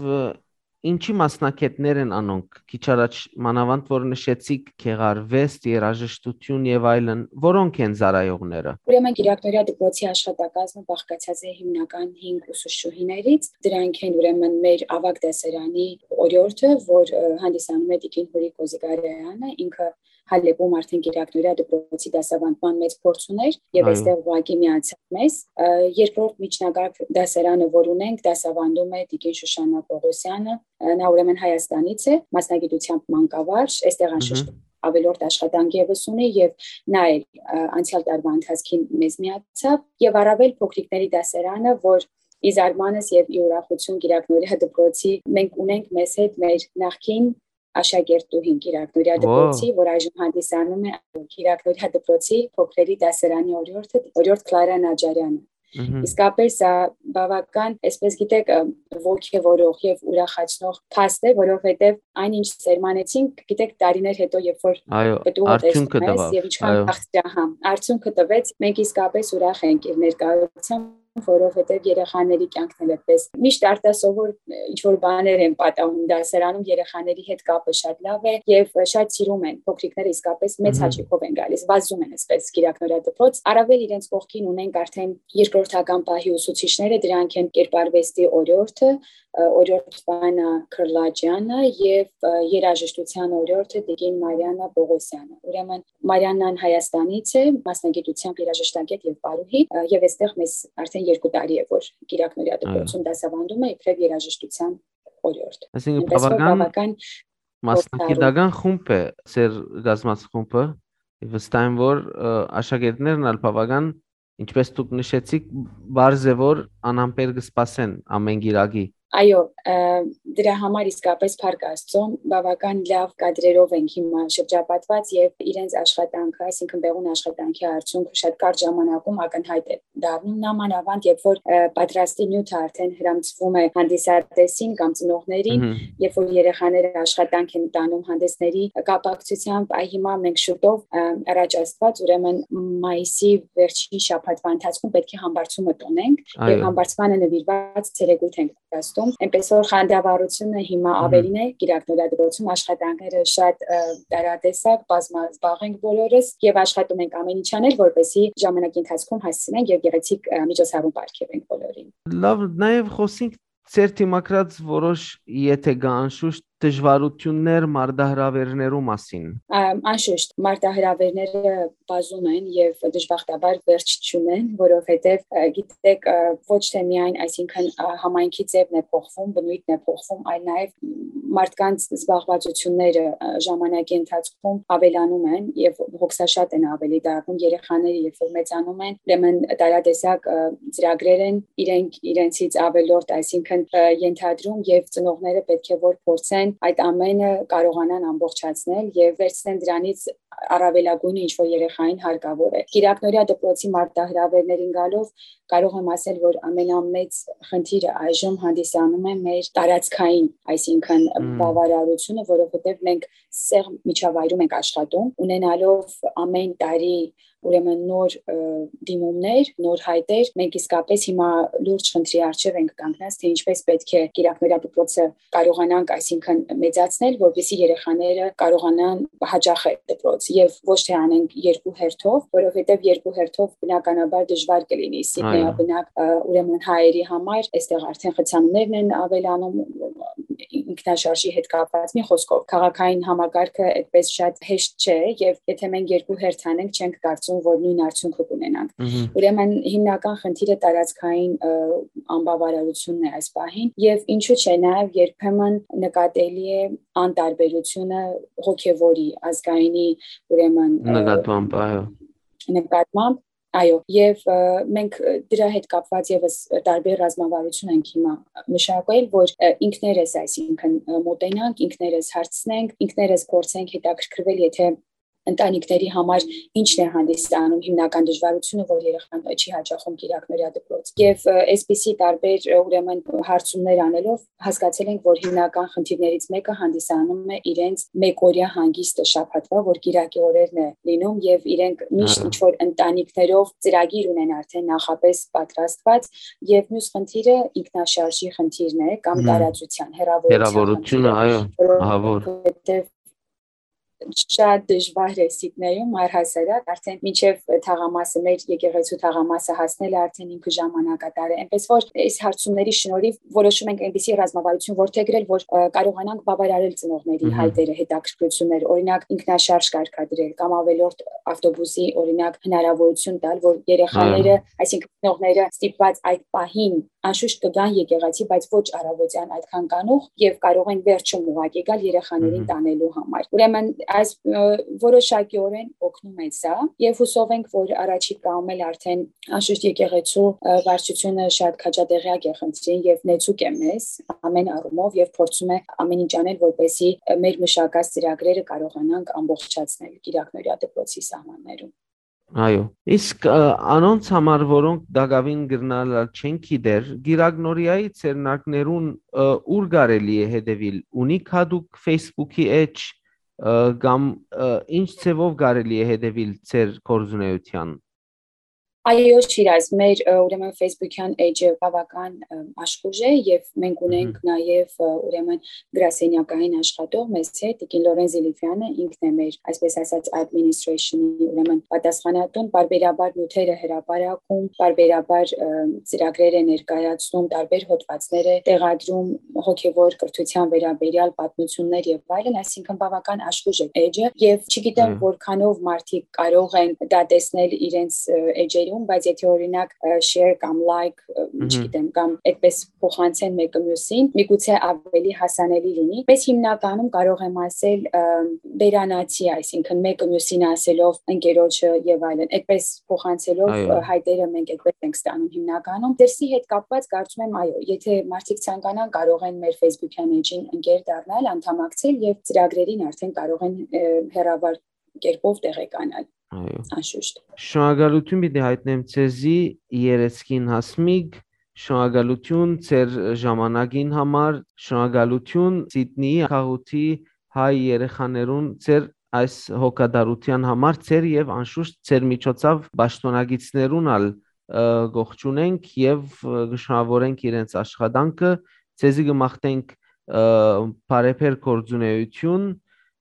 ինչի մասնակիցներ են անոնք, քիչ առաջ մանավանդ որ նշեցիք գեղարվեստ, երաժշտություն և այլն, որոնք են ծառայողները։ Ուրեմն Կիրակնորյա դպրոցի աշխատակազմը բաղկացած է հիմնական հինգ ուսուցչուհիներից, դրանք են ուրեմն մեր ավագ դասարանի օրիորդը, որ հանդիսանում է Տիկին Հուրի Կոզիգարյանը, ինքը Հալէպում արդեն կիրակնօրեայ դպրոցի դասաւանդման մեծ փորձ ունէր եւ այստեղ ուղղակի միացաւ մեզ։ Ը, երկրորդ միջնակարգ դասարանը, որ ունենք, դասաւանդում է տիկին Շուշանա Պողոսյանը, ը, նա ուրեմն Հայաստանից է, մասնագիտությամբ մանկավարժ, այստեղ անշուշտ ավելորդ աշխատանք եւս ունի եւ նա էլ, ը, անցեալ տարուայ ընթացքին մեզ միացաւ եւ առաւել փոքրիկների դասարանը, որ ի զարմանս եւ ի ուրախութիւն կիրակնօրեայ դպրոցի մենք ունենք մեզ հետ մեր նախկին աշակերտուհին կիրակնօրեայ դպրոցի, որ այժմ հանդիսանում է կիրակնօրեայ դպրոցի փոքրերի դասարանի օրիորդը, օրիորդ Կլարա Նաջարյանը։ Մհմ։ Իսկապես, ա, բավական, այսպես գիտեք, ը, ոգևորող եւ ուրախացնող փաստ է, որովհետեւ այն ինչ սերմանեցինք, գիտեք, տարիներ հետո, երբ որ Այո, պտուղը արդյունքը տեսնում ես տվաւ, եւ ինչքան այո։ Քաղցրահամ, արդյունքը տվեց, մենք իսկապես ուրախ ենք իր ներկայությամբ, որովհետեւ երեխաների կյանքն էլ այդպես միշտ արտասովոր, ը, ինչ որ բաներ են պատահում դասարանում, երեխաների հետ կապը շատ լավ է եւ շատ սիրում են, փոքրիկները իսկապես մեծ Մհմ։ հաճույքով են գալիս, վազում են այսպես կիրակնօրեայ դպրոց, առաւել իրենց կողքին ունենք արդեն երկրորդական պահի ուսուցիչները, դրանք են կերպարուեստի օրիորդը, ը, օրիորդ Վանա Քրլաջյանը եւ, ը, երաժշտության օրիորդը տիկին Մարիանա Պողոսյանը։ Ուրեմն Մարիանան Հայաստանից է, մասնագիտությամբ երաժշտագետ եւ պարուհի, ը, եւ այստեղ մեզ արդեն երկու տարի է, որ կիրակնօրեայ Այո։ դպրոցում դասաւանդում է իբրեւ երաժշտության օրիորդ։ Այսինքն՝ Այնպես որ բավական բավական մասնագիտական խորհրդարու։ խումբ է ձեր կազմած խումբը, վստահ եմ, որ, ը, աշակերտներն ալ բավական, ինչպես դուք նշեցիք, բարձ է, որ անհամբեր կը սպասեն ամեն գիրակի։ Այո, ը, դրա համար իսկապես փառք Աստծո, բավական լավ կադրերով ենք հիմա շրջապատված եւ իրենց աշխատանքը, այսինքն՝ Բեղուն աշխատանքի արդյունքը շատ կարճ ժամանակում ակնհայտ է դառնում, նամանավանդ երբ որ, ը, պատրաստի նիւթը արդեն հրամցվում է հանդիսատեսին կամ ծնողներին, Մհմ։ երբ որ երեխաները աշխատանք են տանում հանդեսների կապակցությամբ, այ հիմա մենք շուտով, ը, առաջ Աստված, ուրեմն մայիսի վերջին շաբաթվա ընթացքում պետք է համբարձումը տոնենք եւ Այո։ համբարձմանը նվիրված ցերեկոյթ ենք պատրաստում։ Այնպես որ խանդավառությունը հիմա Մհմ։ ավելին է կիրակնօրեայ դպրոցում, աշխատանքները շատ, ը, տարատեսակ, բազմազբաղ ենք բոլորս եւ աշխատում ենք ամեն ինչ անել, որպեսզի ժամանակի ընթացքում հասցնենք եւ գեղեցիկ, ը, միջոցառում պարգեւենք բոլորին։ Լավ, նաեւ խօսենք ձեր դիմագրած որոշ, եթե կա, անշուշտ, դժվարութիւններ մարտահրաւերներու մասին։ Ամ, անշուշտ, մարտահրաւերները բազում են եւ դժբախտաբար վերջ չունեն, որովհետեւ, ը, գիտեք, ը, ոչ թե միայն, այսինքն, ը, համայնքի ձևն է փոխվում, բնույթն է փոխվում, այլ նաեւ մարդկանց զբաղվածությունները, ը, ժամանակի ընթացքում ավելանում են եւ հոգսաշատ են ավելի դառնում երեխաները, երբ որ մեծանում են, ուրեմն տարատեսակ, ը, ծրագրեր են իրենք իրենցից ավելորդ, այսինքն, ը, ենթադրում եւ ծնողները պետք է որ փորձեն այդ ամենը կարողանան ամբողջացնել եւ վերցնեն դրանից առավելագույնը, ինչ որ երեխային հարկաւոր է։ Կիրակնօրեայ դպրոցի մարտահրաւերներին գալով կարող եմ ասել, որ ամենամեծ խնդիրը այժմ հանդիսանում է մեր տարածքային, այսինքն Մմ։ բավարարությունը, որովհետեւ մենք սեղ միջավայրում ենք աշխատում, ունենալով ամեն տարի ուրեմն նոր, ը, դիմումներ, նոր հայտեր, մենք իսկապես հիմա լուրջ խնդրի առջեւ ենք կանգնած, թե ինչպես պետք է կիրակնօրեայ դպրոցը կարողանանք, այսինքն, մեծացնել, որպեսզի երեխաները կարողանան հաճախել դպրոց եւ ոչ թե անենք երկու հերթով, որովհետեւ երկու հերթով բնականաբար դժվար կլինի Սիդնեյ Այո։ բնակ, ը, ուրեմն հայերի համար, այստեղ արդեն խցանումներն են ավելանում, ինքնաշարժի հետ կապված, մի խոսքով, քաղաքային համակարգը այդպես շատ հեշտ չէ եւ եթե մենք երկու հերթ անենք, չենք կարծում, որ նույն արդյունքը կունենանք։ Մհմ։ Ուրեմն հիմնական խնդիրը տարածքային, ը, անբավարարությունն է այս պահին եւ ինչու՞ չէ, նաեւ երբեմն նկատելի է անտարբերությունը հոգեվորի, ազգայինի, ուրեմն, ը, Նկատմամբ, այո։ նկատմամբ, այո, եւ, ը, մենք, ը, դրա հետ կապված եւս տարբեր ռազմավարություն ենք հիմա մշակել, որ, ը, ինքներս, այսինքն, ը, մոտենանք, ինքներս հարցնենք, ինքներս փորձենք հետաքրքրվել, եթե ընտանիքների համար ինչն է հանդիսանում հիմնական դժվարությունը, որ երեխան չի հաճախում կիրակնօրյա դպրոց։ Եվ, ը, այսպիսի տարբեր, ը, ուրեմն, հարցումներ անելով հասկացել ենք, որ հիմնական խնդիրներից մեկը հանդիսանում է իրենց մեկօրյա հանգիստը շաբաթվա, որ կիրակի օրերն է լինում, եւ իրենք միշտ Հա։ ինչ-որ ընտանիքներով ծրագիր ունեն արդեն նախապես պատրաստված, եւ մյուս խնդիրը ինքնաշարժի խնդիրն է կամ Մհմ։ տարածության, հեռավորության Հեռավորությունը, խնդիրը, այո, ահա որ։ որովհետեւ շատ դժվար է Սիդնեյում, առհասարակ, արդեն մինչեւ թաղամասը, մեր եկեղեցու թաղամասը հասնել, արդեն ինքը ժամանակատար է։ Այնպես որ այս հարցումների շնորհիվ որոշում ենք այնպիսի ռազմավարություն որդեգրել, որ, ը, կարողանանք բավարարել ծնողների Մհմ։ հայտերը, հետաքրքրություններ, օրինակ, ինքնաշարժ կարգադրել կամ ավելորդ ավտոբուսի, օրինակ, հնարավորություն տալ, որ երեխաները, Այո։ այսինքն ծնողները ստիպված այդ պահին անշուշտ կգան եկեղեցի, բայց ոչ առավոտյան այդքան կանուխ, եւ կարող են վերջում ուղղակի գալ երեխաներին Մհմ։ տանելու համար։ Ուրեմն այս, ը, որոշակիորեն օգնում է սա, եւ հուսով ենք, որ առաջիկայում էլ արդեն անշուշտ եկեղեցու, ը, վարչությունը շատ քաջատեղյակ է խնդրին եւ նեցուկ է մեզ ամեն առումով եւ փորձում է ամեն ինչ անել, որպեսզի, ը, մեր մշակած ծրագրերը կարողանանք ամբողջացնել Կիրակնորիա դպրոցի սահմաններում։ Այո։ Իսկ, ը, անոնց համար, որոնք տակաւին կրնալալ չեն գիտեր, Կիրակնորիայի ձեռնարկներուն, ը, ո՞ւր կարելի է հետեւիլ, ունի՞ք յատուկ Facebook-ի էջ, ը, կամ, ը, ինչ ձեւով կարելի է հետեւիլ ձեր գործունեութեան։ Այո, Շիրազ, մեր, ը, ուրեմն Facebook-յան էջը բավական, ը, աշխուժ է եւ մենք ունենք Մհմ։ նաեւ, ը, ուրեմն գրասենյակային աշխատող մեզ հետ, տիկին Լորեն Զիլիֆյանը, ինքն է մեր, այսպես ասած, administration-ի, ուրեմն պատասխանատուն, պարբերաբար նյութերը հրապարակում, պարբերաբար, ը, ծրագրեր է ներկայացնում, տարբեր հոդվածներ է տեղադրում, հոգեվոր կրթության վերաբերյալ պատմություններ եւ այլն, այսինքն բավական աշխուժ է էջը եւ չգիտեմ Այո։ որքանով մարդիկ կարող են դա տեսնել իրենց, ը, էջերում, բայց եթե օրինակ, ը, share կամ like, ը, Մհմ։ չգիտեմ, կամ այդպես փոխանցեն մեկը մյուսին, միգուցե ավելի հասանելի լինի։ Բայց հիմնականում կարող եմ ասել, ը, վերանացի, այսինքն մեկը մյուսին ասելով ընկերոջը եւ այլն, այդպես փոխանցելով, Այո։ ը, հայտերը մենք այդպես ենք ստանում հիմնականում։ Դրսի հետ կապված կարծում եմ, այո, եթե մարդիկ ցանկանան, կարող են մեր Facebook-յան էջին ընկեր դառնալ, անդամակցել եւ ծրագրերին արդեն կարող են, ը, հեռավար կերպով տեղեկանալ, Այո։ անշուշտ։ Շնորհակալություն պիտի հայտնեմ ձեզի, երեսքին Հասմիկ, շնորհակալություն ձեր ժամանակին համար, շնորհակալություն Սիդնիի քաղաքի հայ երեխաներուն ձեր այս հոգատարութեան համար, ձեր եւ անշուշտ ձեր միջոցով պաշտօնակիցներուն ալ, ը, կողջունենք եւ, ը, կշնորհավորենք իրենց աշխատանքը, ձեզի կմաղթենք, ը, բարեբեր գործունեություն,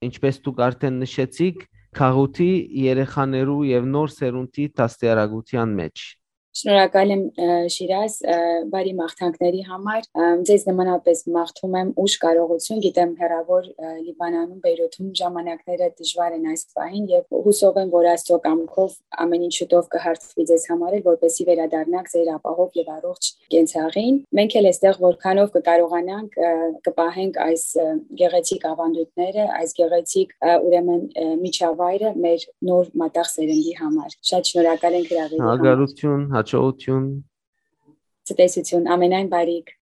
ինչպես դուք արդեն նշեցիք, քաղաքի երեխաներու եւ նոր սերունդի դաստիարակութեան մէջ։ Շնորհակալ եմ, ը, Շիրազ, ը, բարի մաղթանքների համար։ Ը, ձեզ նմանապես մաղթում եմ ուժ, կարողություն, գիտեմ հեռավոր, ը, Լիբանանում, Բեյրութում ժամանակները դժվար են այս պահին եւ հուսով եմ, որ Աստծո կամքով ամեն ինչ շուտով կհարթվի ձեզ համար էլ, որպեսզի վերադառնաք ձեր ապահով եւ առողջ կենցաղին։ Մենք էլ էստեղ որքանով կկարողանանք, ը, կպահենք այս, ը, գեղեցիկ ավանդույթները, այս գեղեցիկ, ը, ուրեմն, ը, միջավայրը մեր նոր մատաղ սերնդի համար։ Շատ շնորհակալ ենք հրավերի համար։ Շնորհակալություն, հաջողություն։ Ցտեսություն, ամենայն բարիք։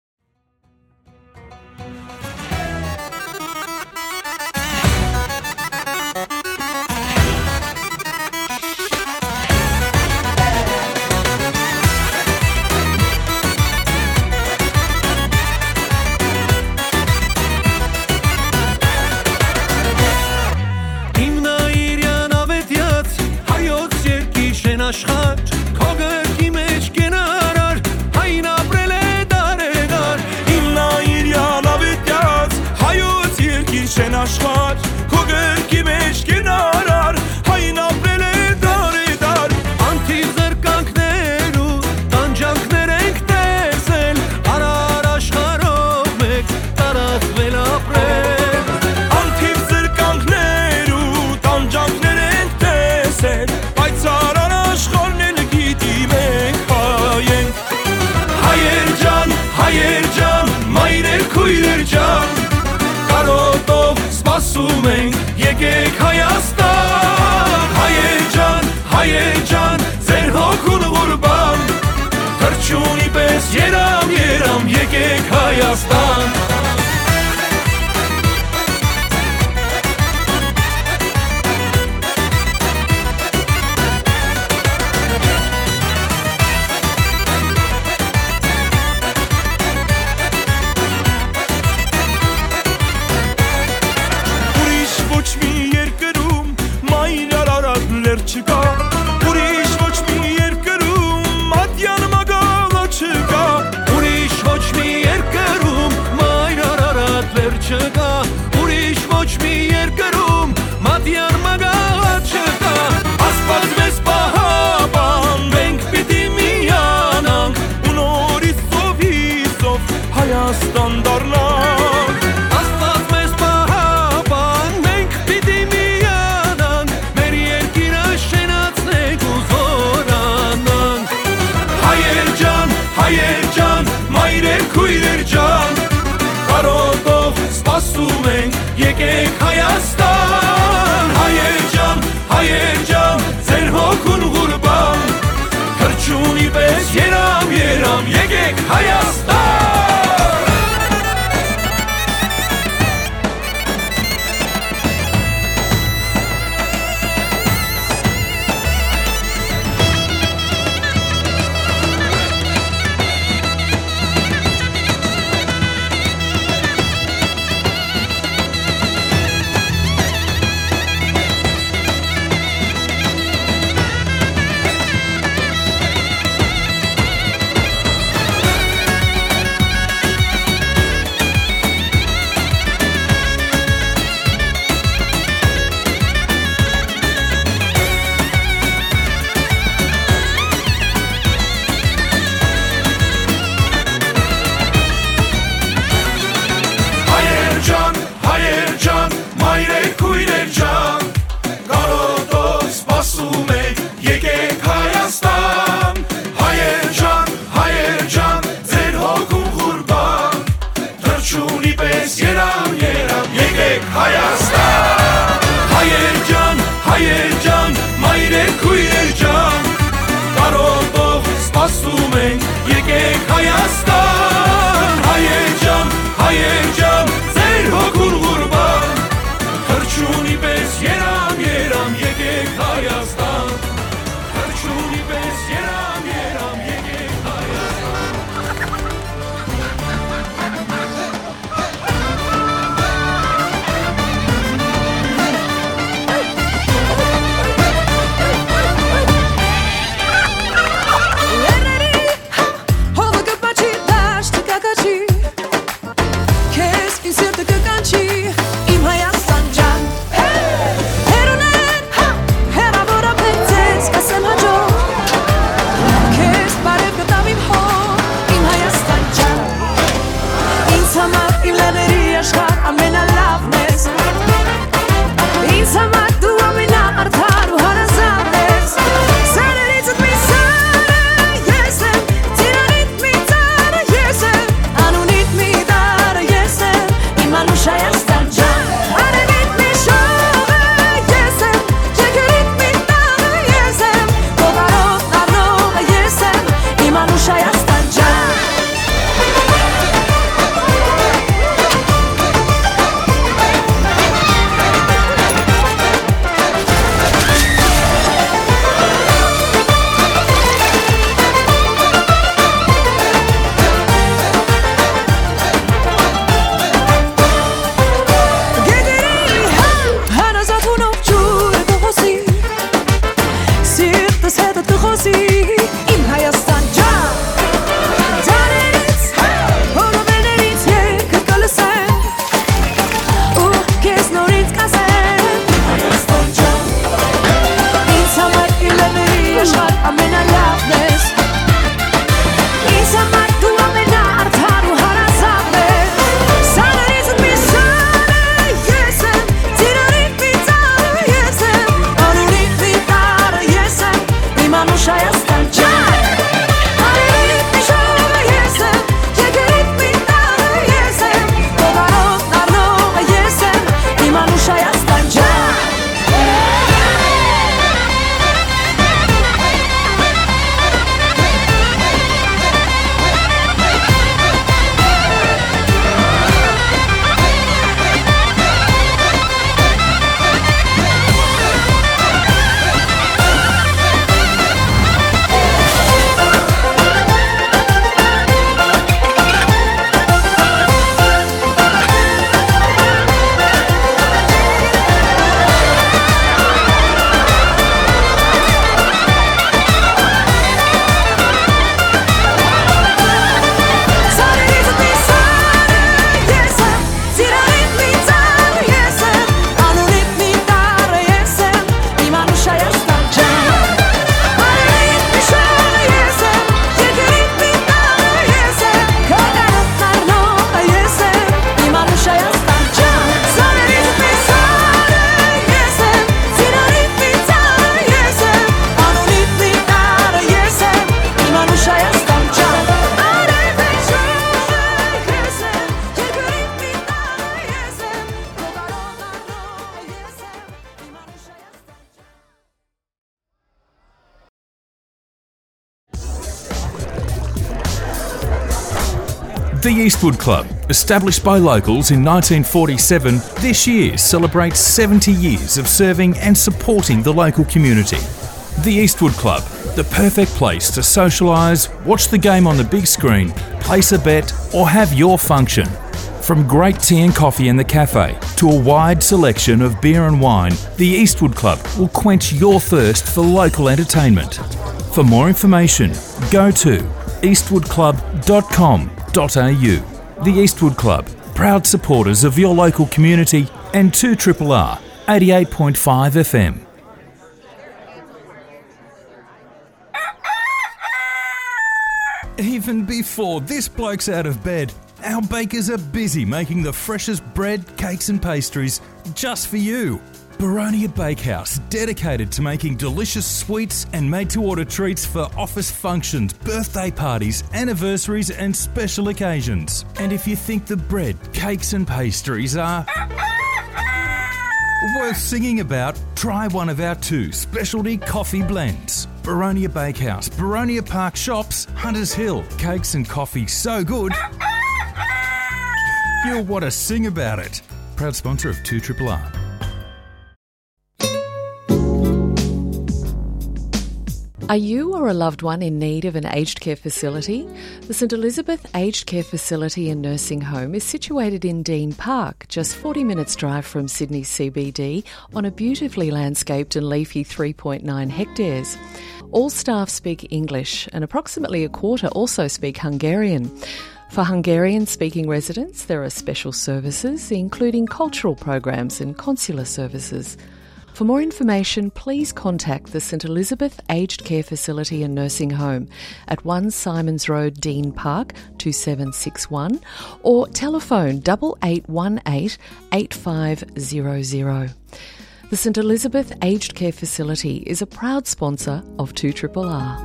Հիմնայիրյան ավետյաց հայոց երկի շեն աշխարհ, քո գրկի մեջ կենարար, հայն ապրել է դարեդար։ Հիմնայիրյան ավետյաց հայոց երկի շեն աշխարհ, քո գրկի մեջ կենարար, հայն ապրել է դարեդար։ Անթիվ զրկանքներու տանջանքներ ենք տեսել, արար աշխարհով մեկ տարածվել ապրել։ Անթիվ զրկանքներու տանջանքներ ենք տեսել, բայց արար աշխարհն էլ գիտի մենք հայ ենք։ Հայեր ջան, հայեր ջան, մայրեր, քույրեր ջան, կարոտով սպասում ենք, եկեք Հայաստան։ Հայեր ջան, հայեր ջան, ձեր հոգուն ղուրբան, թռչունի պես երամ, երամ, եկեք Հայաստան։ Ուրիշ ոչ մի երկրում մայր Արարատ լեռ չկա, ուրիշ ոչ մի երկրում մատյան մագալա չկա, ուրիշ ոչ մի երկրում մայր Արարատ լեռ չկա, ուրիշ ոչ մի երկրում մատյան Հայաստան դառնանք։ Աստուած մեզ պահապան, մենք պիտի միանանք, մեր երկիրը շենացնենք ու զօրանանք։ Հայեր ջան, հայեր ջան, մայրեր, քոյրեր ջան, կարոտով սպասում ենք, եկեք Հայաստան։ Հայեր ջան, հայեր ջան, ձեր հոգուն ղուրբան, թռչունի պէս երամ, երամ, եկեք Հայաստան։ Հայեր ջան, հայեր ջան, մայրեր, քոյրեր ջան, կարոտով սպասում ենք, եկեք Հայաստան։ Հայեր ջան, հայեր ջան, ձեր հոգուն ղուրբան, թռչունի պէս երամ, երամ, եկեք Հայաստան։ Հայեր ջան, հայեր ջան, մայրեր, քոյրեր ջան, կարոտով սպասում ենք, եկեք Հայաստան։ Հայեր ջան, հայեր ջան, ձեր հոգուն ղուրբան, թռչունի պէս երամ, երամ, եկեք Հայաստան։ Թռչունի պէս երամ, երամ, եկեք Հայաստան։ The Eastwood Club, established by locals in nineteen forty-seven, this year celebrates seventy years of serving and supporting the local community. The Eastwood Club, the perfect place to socialise, watch the game on the big screen, place a bet, or have your function. From great tea and coffee in the cafe to a wide selection of beer and wine, the Eastwood Club will quench your thirst for local entertainment. For more information, go to eastwood club dot com dot a u. The Eastwood Club, proud supporters of your local community and two triple R eighty-eight point five F M. Even before this bloke's out of bed, our bakers are busy making the freshest bread, cakes, and pastries just for you. Baronia Bakehouse, dedicated to making delicious sweets and made to order treats for office functions, birthday parties, anniversaries, and special occasions. And if you think the bread, cakes, and pastries are worth singing about, try one of our two specialty coffee blends. Baronia Bakehouse, Baronia Park Shops, Hunters Hill. Cakes and coffee so good, you'll want to sing about it. Proud sponsor of two triple R. Are you or a loved one in need of an aged care facility? The St Elizabeth Aged Care Facility and Nursing Home is situated in Dean Park, just forty minutes' drive from Sydney C B D, on a beautifully landscaped and leafy three point nine hectares. All staff speak English, and approximately a quarter also speak Hungarian. For Hungarian speaking residents, there are special services, including cultural programs and consular services. For more information, please contact the St Elizabeth Aged Care Facility and Nursing Home at one Symonds Road, Dean Park, two seven six one, or telephone double eight one eight eight five zero zero. The St Elizabeth Aged Care Facility is a proud sponsor of two triple R.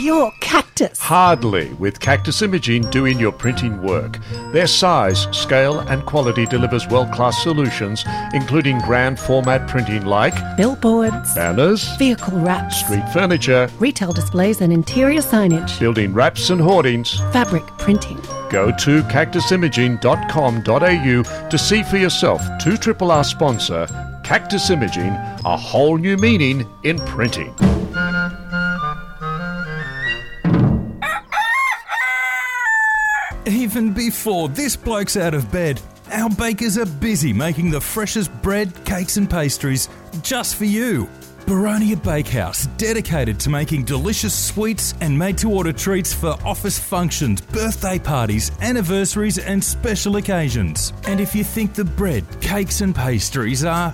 Your cactus. Hardly, with Cactus Imaging doing your printing work. Their size, scale, and quality delivers world-class solutions, including grand format printing like billboards, banners, vehicle wraps, street furniture, retail displays and interior signage, building wraps and hoardings, fabric printing. Go to cactus imaging dot com dot a u to see for yourself two triple R sponsor, Cactus Imaging, a whole new meaning in printing. Even before this bloke's out of bed, our bakers are busy making the freshest bread, cakes, and pastries just for you. Baronia Bakehouse, dedicated to making delicious sweets and made to order treats for office functions, birthday parties, anniversaries, and special occasions. And if you think the bread, cakes, and pastries are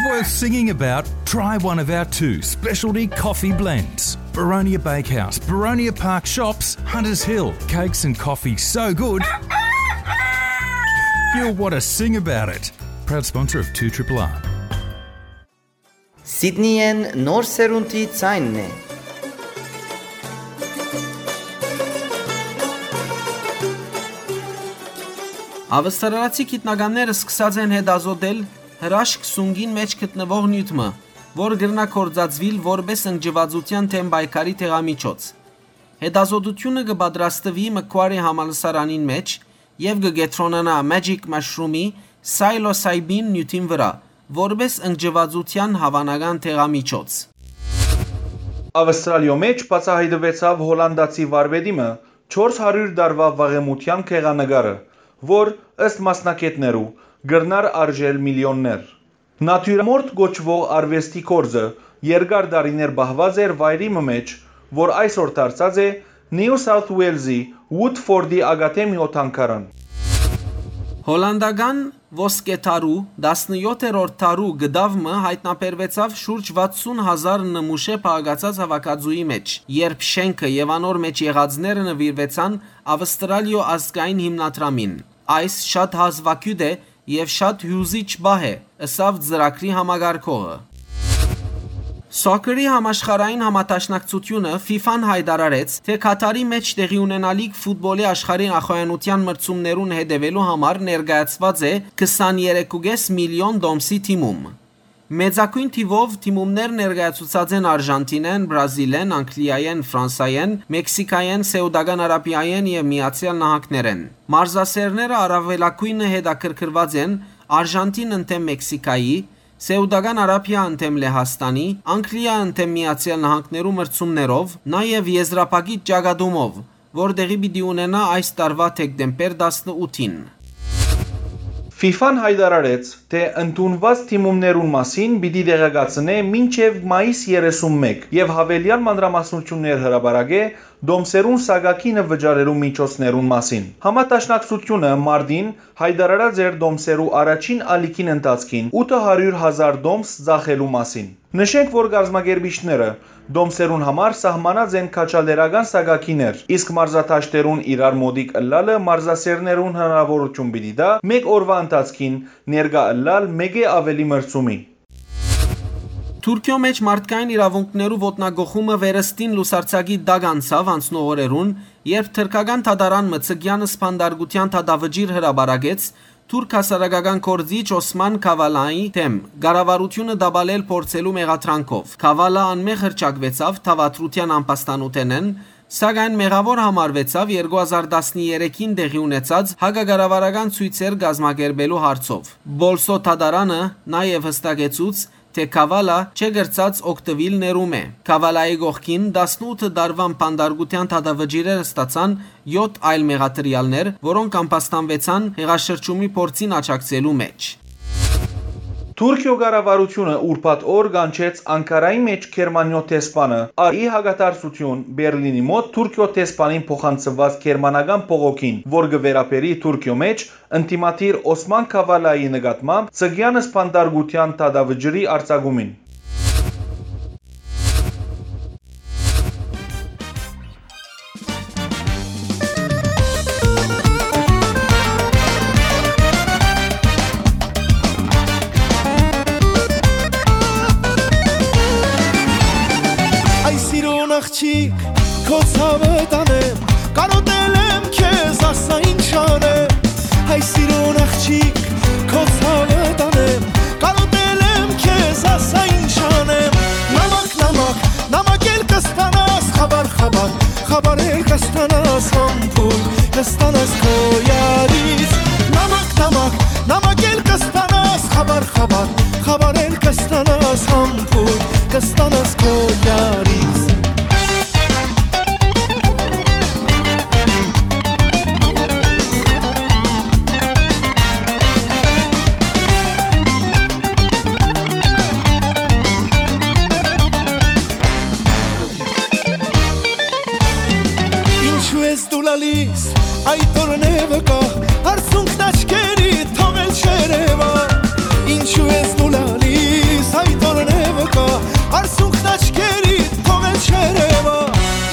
worth singing about, try one of our two specialty coffee blends. Baronia Bakehouse, Baronia Park Shops, Hunters Hill. Cakes and coffee so good, you'll want to sing about it. Proud sponsor of two triple R. Սիդնիեն նոր սերունդի ձայնն է։ Ավստրալացի գիտնականները սկսած են հետազոտել հրաշք սունկին մէջ գտնուող նիւթ մը, որ կրնայ գործածուիլ որպէս ընկճուածութեան դէմ պայքարի դեղամիջոց։ Հետազոտութիւնը կը պատրաստուի Մքուարի համալսարանին մէջ եւ կը կեդրոնանայ Magic Mushroom-ի psilocybin նիւթին վրայ, որպէս ընկճուածութեան հաւանական դեղամիջոց։ Ավստրալիոյ մէջ բացայայտուեցաւ հոլանդացի վարպետի մը չորս հարիւր տարուայ վաղեմութեան գեղանկարը, որ, ըստ մասնագէտներու, կրնար արժել միլիոններ։ Նատիւրամորտ կոչուող արուեստի գործը երկար տարիներ պահուած էր վայրի մը մէջ, որ այսօր դարձած է New South Wales-ի Woodford-ի ակադեմիոյ թանգարան։ Հոլանդական ոսկե դարու, տասնեօթերորդ դարու կտաւ մը յայտնաբերուեցաւ շուրջ վաթսուն հազար նմուշէ փաղկացած հաւաքածուի մէջ, երբ շէնքը եւ անոր մէջ եղածները նուիրուեցան Ավստրալիոյ ազգային հիմնադրամին։ Այս շատ հազուագիւտ է եւ շատ հիւզիչ պահ է, ըսաւ ծրագրի համակարգողը։ Սոքերի համաշխարհային համադաշնակցութիւնը՝ ֆիֆան, յայտարարեց, թէ Քաթարի մէջ տեղի ունենալիք ֆուտբոլի աշխարհի նախայանութեան մրցումներուն հետեւելու համար ներկայացուած է քսաներեք ու կէս միլիոն տոմսի թիմում։ Մեծագոյն թիւով դիմումներ ներկայացուցած են Արժանտինէն, Բրազիլէն, Անգլիայէն, Ֆրանսայէն, Մեքսիքայէն, Սէուտական Արաբիայէն եւ Միացեալ Նահանգներէն։ Մարզասէրները առաւելագոյնը հետաքրքրուած են Արժանտին ընդդէմ Մեքսիքայի, Սէուտական Արաբիա ընդդէմ Լեհաստանի, Անգլիա ընդդէմ Միացեալ Նահանգներու մրցումներով, նաեւ եզրափակիչ ճակատումով, որ տեղի պիտի ունենայ այս տարուայ դեկտեմբեր տասնութին։ Ֆիֆան յայտարարեց, թէ ընդունուած դիմումներուն մասին պիտի տեղեկացնէ մինչեւ մայիս երեսունմէկ եւ յաւելեալ մանրամասնութիւններ հրապարակէ դոմսերուն սակագինը վճարելու միջոցներուն մասին։ Համադաշնակցութիւնը մարտին յայտարարած էր դոմսերու առաջին ալիքին ընթացքին ութը հարիւր հազար դոմս ծախելու մասին։ Նշենք, որ կազմակերպիչները դոմսերուն համար սահմանած են քաջալերական սակագիներ, իսկ մարզադաշտերուն իրար մօտիկ ըլլալը մարզասէրներուն հնարաւորութիւն պիտի տայ մէկ օրուայ ընթացքին ներկայ ըլլալ մէկէ աւելի մրցումի։ Թուրքիոյ մէջ մարդկային իրաւունքներու ոտնակոխումը վերստին լուսարձակի տակ անցաւ անցնող օրերուն, երբ թրքական դատարան մը Ցգեան սպանդարկութեան դատավճիռ հրապարակեց թուրք հասարակական գործիչ Օսման Քավալայի դէմ, կառավարութիւնը տապալել փորձելու մեղադրանքով։ Քավալա անմեղ հռչակուեցաւ դաւադրութեան ամբաստանութենէն, սակայն մեղաւոր համարուեցաւ երկու հազար տասներեքին տեղի ունեցած հակակառավարական ցոյցեր կազմակերպելու հարցով։ Պոլսոյ դատարանը նաեւ յստակեցուց, թէ Քավալա չէ կրցած օգտուիլ ներում է։ Քավալայի կողքին տասնութ տարուան բանտարկութեան դատավճիռեր ստացան յոթ այլ մեղադրեալներ, որոնք ամբաստանուեցան հեղաշրջումի փորձին աջակցելու մէջ։ Թուրքիոյ կառավարութիւնը ուրբաթ օր կանչեց Անկարայի մէջ Գերմանիոյ դեսպանը, ա, ի հակադարձութիւն Բերլինի մօտ Թուրքիոյ դեսպանին փոխանցուած գերմանական բողոքին, որ կը վերաբերի Թուրքիոյ մէջ ընդդիմադիր Օսման Քավալայի նկատմամբ Ցգեան սպանդարկութեան դատավճիռի արձակումին։ Այ սիրուն աղջիկ, քո ցաւը տանեմ, կարոտել եմ քեզ, ասա ինչ անեմ։ Հայ սիրուն աղջիկ, քո ցաւը տանեմ, կարոտել եմ քեզ, ասա ինչ անեմ։ Նամակ, նամակ, նամակ էլ կստանաս, խաբար, խաբար, խաբար էլ կստանաս, համբույր կստանաս քո յարից։ Նամակ, նամակ, նամակ էլ կստանաս, խաբար, խաբար, խաբար էլ կստանաս, համբույր կստանաս քո յարից։ Ինչու ես դու լալիս, այդ օրն է վկա, արցունքն աչքերի թողել չերևա։ Ինչու ես դու լալիս, այդ օրն է վկա, արցունքն աչքերի թողել չերևա։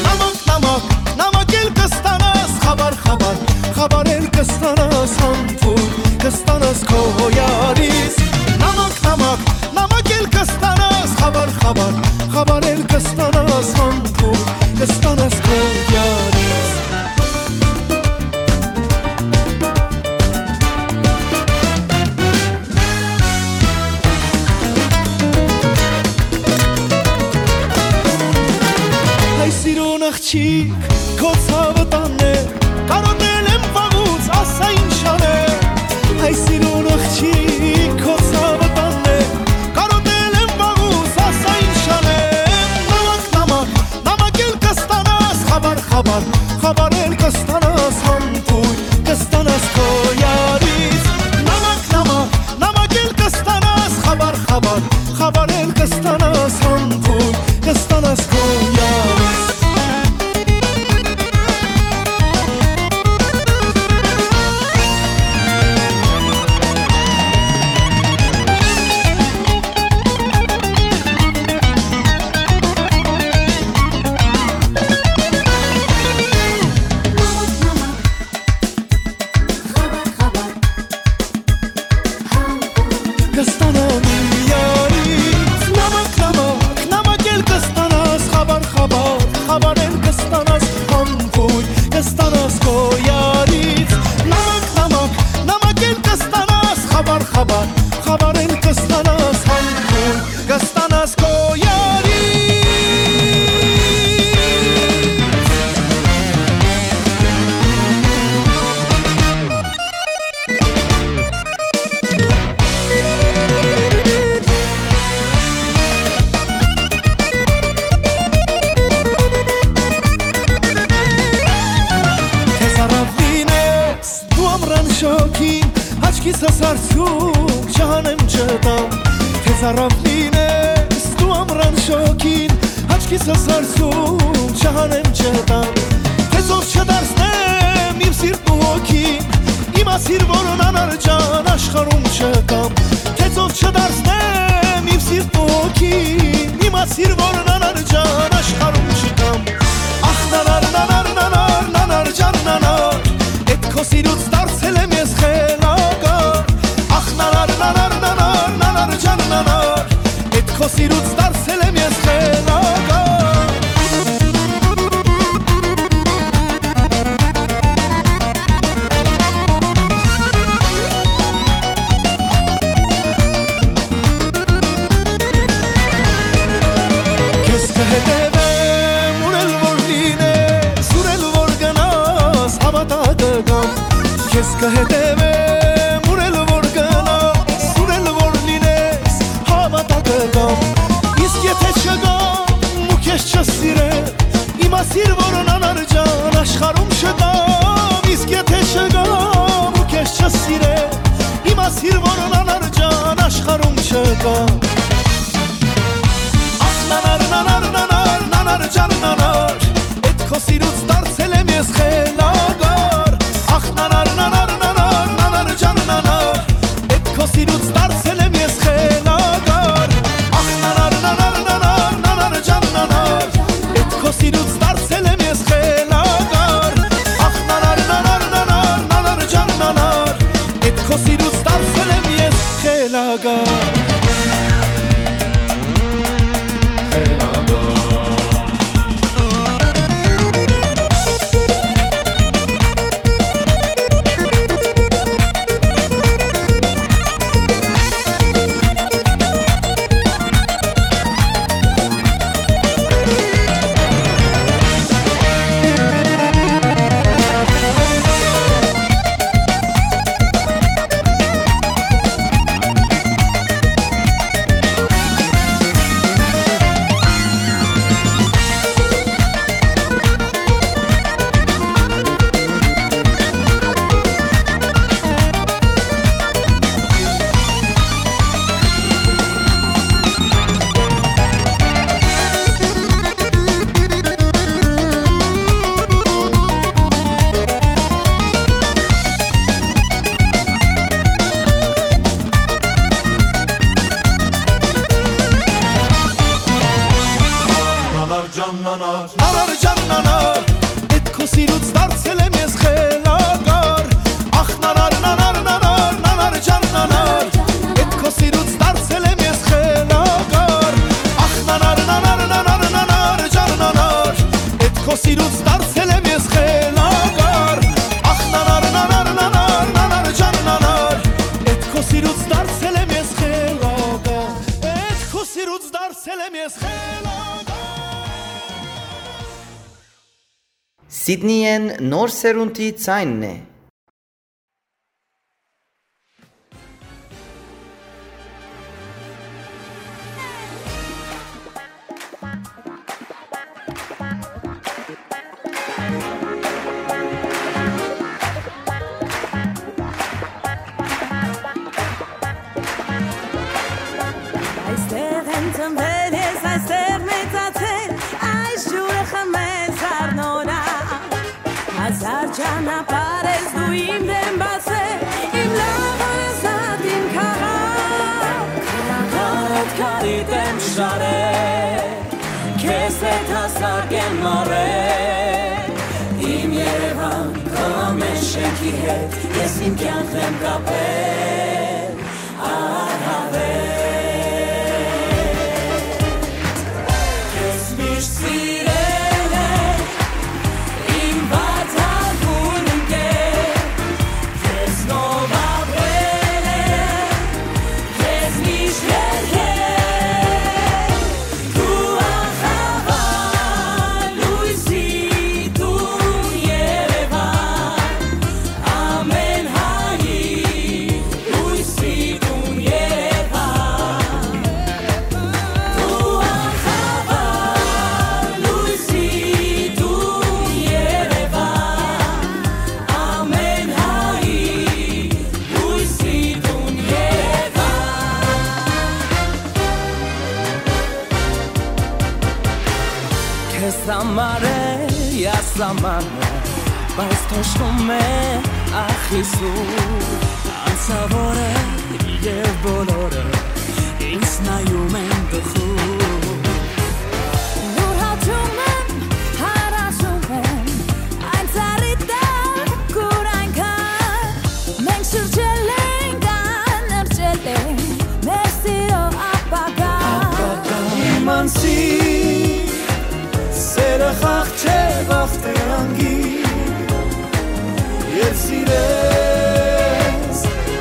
Նամակ, նամակ, նամակ էլ կստանաս, խաբար, խաբար, խաբար էլ կստանաս, համբույր կստանաս քո յարից։ Նամակ, նամակ, նամակ էլ կստանաս, խաբար, խաբար, խաբար էլ կստանաս, համբույր կստանաս քո յարից։ Հայ սիրուն աղջիկ, քո ցաւը տանեմ, կարոտել եմ վաղուց, ասա ինչ անեմ։ Հայ սիրուն աղջիկ, քո ցաւը տանեմ, կարոտել եմ վաղուց, ասա ինչ անեմ։ Նամակ, նամակ, նամակ էլ կստանաս, խաբար, խաբար, խաբար էլ կստանաս, համբույր կստանաս քո յարից։ Նամակ, նամակ, նամակ էլ կստանաս, խաբար, խաբար, խաբար էլ կստանաս, համբույր կստանաս քո յարից։ Սարսում չհանեմ չտամ, թե ծառաւ լինես դու ամրան շոգին, աչքիս սարսում չհանեմ չտամ, թե ծով չդարձնեմ իմ սիրտն ու հոգին, իմ ասիր որ անանար ջան աշխարհում չկամ, թե ծով չդարձնեմ իմ սիրտն ու հոգին, իմ ասիր որ անանար ջան աշխարհում չկամ։ Ախ նանար, նանար, նանար, նանար ջան նանար, էդ քո սիրուց դարձել եմ ես խելագար։ Ախ նանար, նանար, նանար, նանար ջան նանար, էդ քո սիրուց դարձել եմ ես խելագար։ Քեզ կհետևեմ, ուր էլ որ լինես, ուր էլ որ գնաս, հավատա կգամ։ Քեզ կհետևեմ, ուր էլ որ գնաս, ուր էլ որ լինես, հավատա կգամ։ Իսկ եթե չգամ ու քեզ չսիրեմ, իմ ասիր որ անանար ջան աշխարհում չկամ, իսկ եթե չգամ ու քեզ չսիրեմ, իմ ասիր որ անանար ջան աշխարհում չկամ։ Ախ նանար, նանար, նանար, նանար ջան նանար, էդ քո սիրուց դարձել եմ ես խելագար։ Ախ նանար, նանար, նանար, նանար ջան նանար, էդ քո սիրուց դարձել եմ ես խելագար։ Ախ նանար, նանար, նանար, նանար ջան նանար, էդ քո սիրուց դարձել եմ ես խելագար։ Ախ նանար, նանար, նանար, նանար ջան նանար, էդ քո սիրուց դարձել եմ ես խելագար։ Նանար ջան նանար, նանար ջան նանար, էդ քո սիրուց դարձել եմ ես խելագար։ Ախ նանար, նանար, նանար, նանար ջան նանար, էդ քո սիրուց դարձել եմ ես խելագար։ Ախ նանար, նանար, նանար, նանար ջան նանար, էդ քո սիրուց դարձել եմ ես խելագար։ Ախ նանար, նանար, նանար, նանար ջան նանար, էդ քո սիրուց դարձել եմ ես խելագար։ Էդ քո սիրուց դարձել եմ ես խելագար։ Սիդնիէն նոր սերունդի ձայնն է։ Այստեղ եմ ծնվել ես, այստեղ մեծացել, այս ջուրը խմել, սառնորայ։ Հազար ճանապարհ ես դու իմ դեմ բացել, իմ լաւոր ազատ իմ քաղաք։ Քարոտ քարիտ եմ շարել, քեզ հետ հասակ եմ մառել։ Իմ Երևան, քո ամեն շենքի հետ ես իմ կյանքն եմ կապել։ Քեզ համար է ասամանը, բայց թոշկում է ախիսու անցավորը եւ բոլորը ինձ նայում են տխուր։ Յուրհաճում եմ, հարազում եմ, այն ծառի տակ, ուր այնքան մենք շրջել ենք, անըրջել ենք մեր սիրո ապագան։ Իմ անսի սերը խաղ չէ, վախ դրան գիր, եւ սիրես,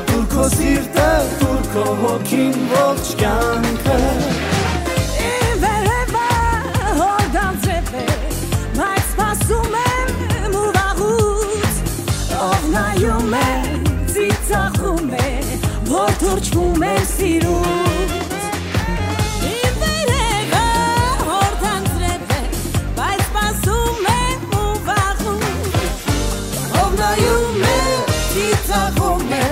տուր քո սիրտը, տուր քո հոգին, ողջ կյանքը։ Իմ վերևը հորդան ձեւ է, բայց սպասում եմ ու վաղուց, ով նայում է, ծիծաղում է, որ թրջվում է սիրուց։ Իմ վերևը հորդան ձեւ է, բայց սպասում եմ ու վաղուց, ով նայում է, ծիծաղում է,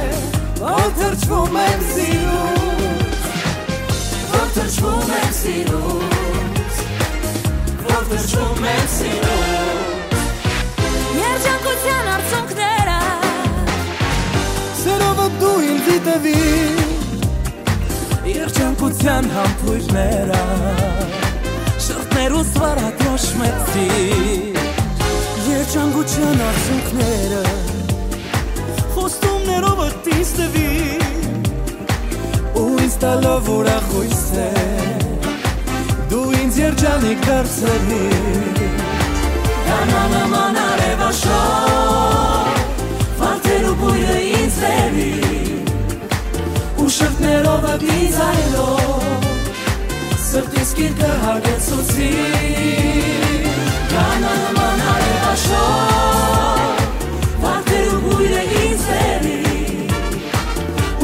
որ թրջվում եմ սիրուց, որ թրջվում եմ սիրուց, որ թրջվում եմ սիրուց։ Երջանկութեան արցունքները, սերովը դու ինձի տուի, երջանկութեան համբոյրները, շղթներուս վարատրոշմեցի, երջանկութեան արցունքները, խոստումներովդ ինձ տուի, ու ինձ տալով ուրախ յոյսեր, դու ինձ երջանիկ դարձրիր։ Կանանաման արեւաշոր, վարդերու բոյրը ինձ բերի, ու շղթներովդ ինձ այլով, սրտիս գիրկը հագեցուցի։ Կանանաման արեւաշոր, վարդերու բոյրը ինձ բերի,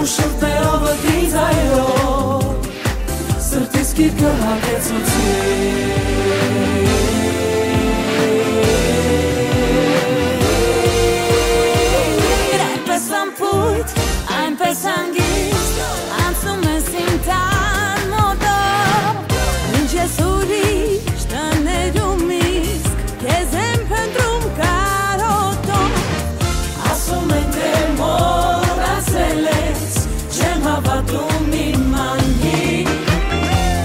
ու շղթներովդ ինձ այլով, սրտիս գիրկը հագեցուցի։ Այնպես անփոյթ, այնպես հանգիստ անցնում ես իմ տան մոտով, ինչ ես ուրիշ տներում իսկ քեզ եմ փնտրում կարոտով։ Ասում են, թե մոռացել ես, չեմ հավատում իմ անգին,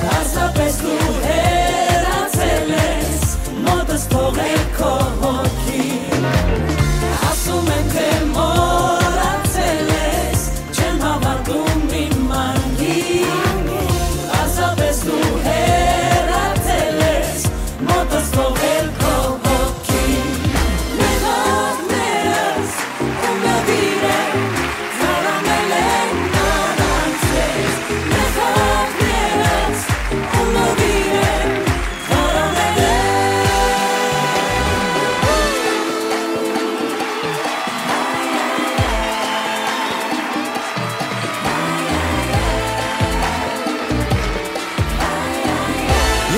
պարզապես դու հեռացել ես, մոտս թողել քո հոգին։ Ասում են, թե մոռացել ես, չեմ հավատում իմ անգին, պարզապես դու հեռացել ես, մոտս թողել քո հոգին։ Մեղքներս ու նվիրը թարամել են առանց քեզ, մեղքներս ու նվիրը թարամել են։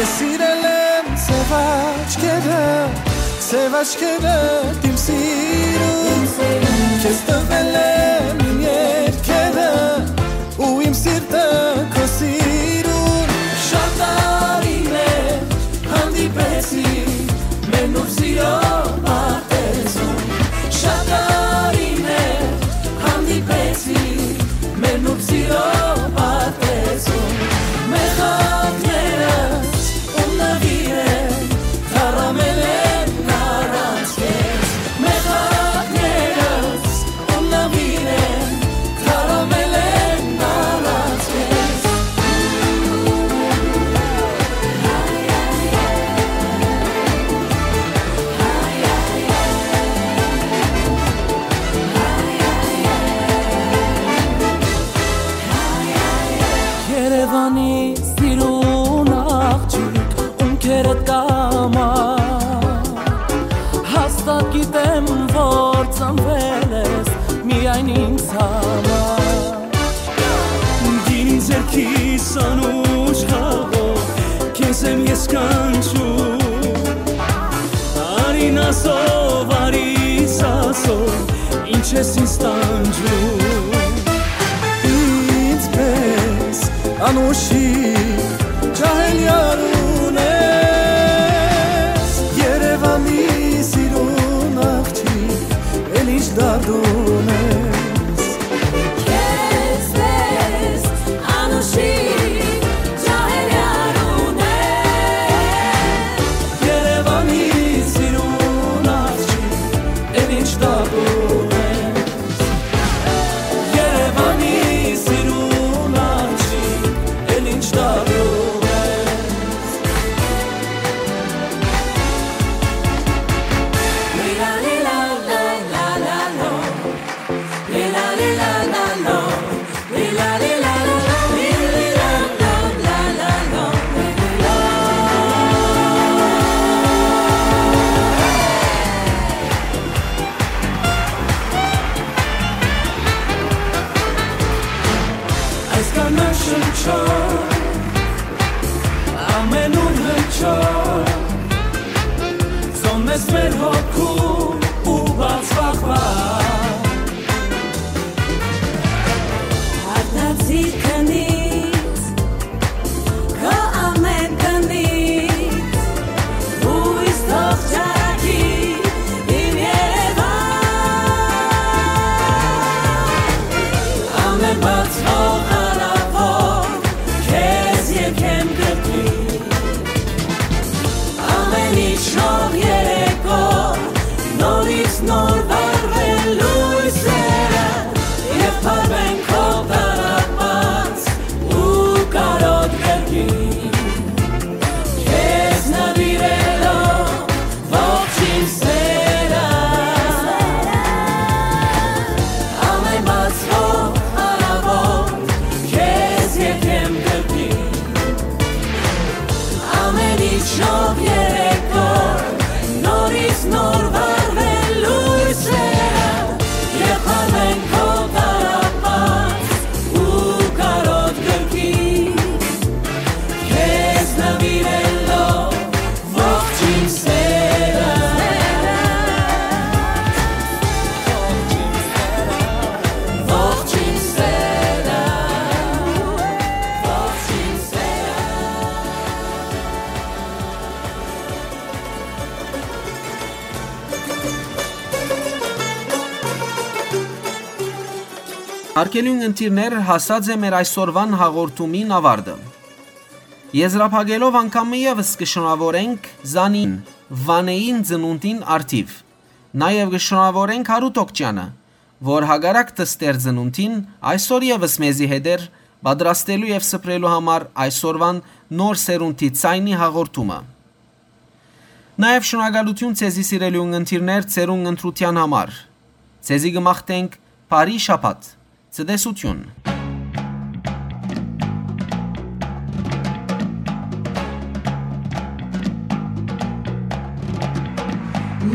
Ես սիրել եմ սեւ աչքերը, սեւ աչքերը իմ սիրուն, քեզ տվել եմ իմ երկերը ու իմ սիրտը քո սիրուն։ Շատ տարիներ հանդիպեցի մեր նուրբ սիրո պարտեզում, շատ տարիներ հանդիպեցի մեր նուրբ սիրո պարտեզում, մեր խաղներս ու նվիրը թարամել են առանց քեզ, մեր խաղներս ու նվիրը թարամել են առանց քեզ։ Երևանի սիրուն աղջիկ, ում քերդ կամա, հաստատ գիտեմ, որ ծնվել ես միայն ինձ համար։ Գինին ձեռքիս անուշ խաղով, քեզ եմ ես կանչում։ Արին ասով, արիս ասով, ինչ ես ինձ տանջում։ Ինձ պես անուշի ջահել յարուն է, Քեզպէս անուշի ջահեր յարունեն, Երեւանի սիրուն աղջիկ, էլ ինչ տատուր ես։ Երեւանի սիրուն աղջիկ, էլ ինչ տատուր ես։ Այս կանաչ շնչով, ամենուն հնչող, զոննես մեր հոգու ու բացվախ Արտացիր քնից, քո ամեն քնից, հույս թող ճառագի իմ Երեւան։ Ամեն բացվող արաւոտ քեզ եկեմ կրկին։ Ամեն ինչ նոր երեկո, նորից նոր վառվել լոյսերը, եւ փարվեն քո տառապած ու կարոտ կրկին։ Քեզ նվիրելով ողջ իմ սերը, ամեն բացվող արաւոտ, քեզ եկեմ կրկին։ Ամեն ինչ նոր երեկո, նորից նոր վառվել լոյսերը, եւ փարվեն քո տառապած ու կարոտ կրկին, քեզ նվիրելով ողջ իմ սերը, ողջ իմ սերը, ողջ իմ սերը։ Արգելուն ընտիրներ, հասած է մեր այսօրվան հաղորդումին ավարտը։ Եզրափակելով անգամ ևս կը շնորհավորենք Զանին, Վանեին ծնունդին արդիվ։ Նաեւ կը շնորհավորենք Հարութ Օքճյանը, որ հակառակ դստեր ծնունդին այսօր ևս մեզի հետ էր պատրաստելու եւ սփռելու համար այսօրվան նոր սերունդի ձայնի հաղորդումը։ Նաեւ շնորհակալութիւն ձեզի, սիրելի ունգընտիրներ, ձեր ունգընտրութեան համար։ Ձեզի կը մաղթենք բարի շաբաթ, ցտեսութիւն։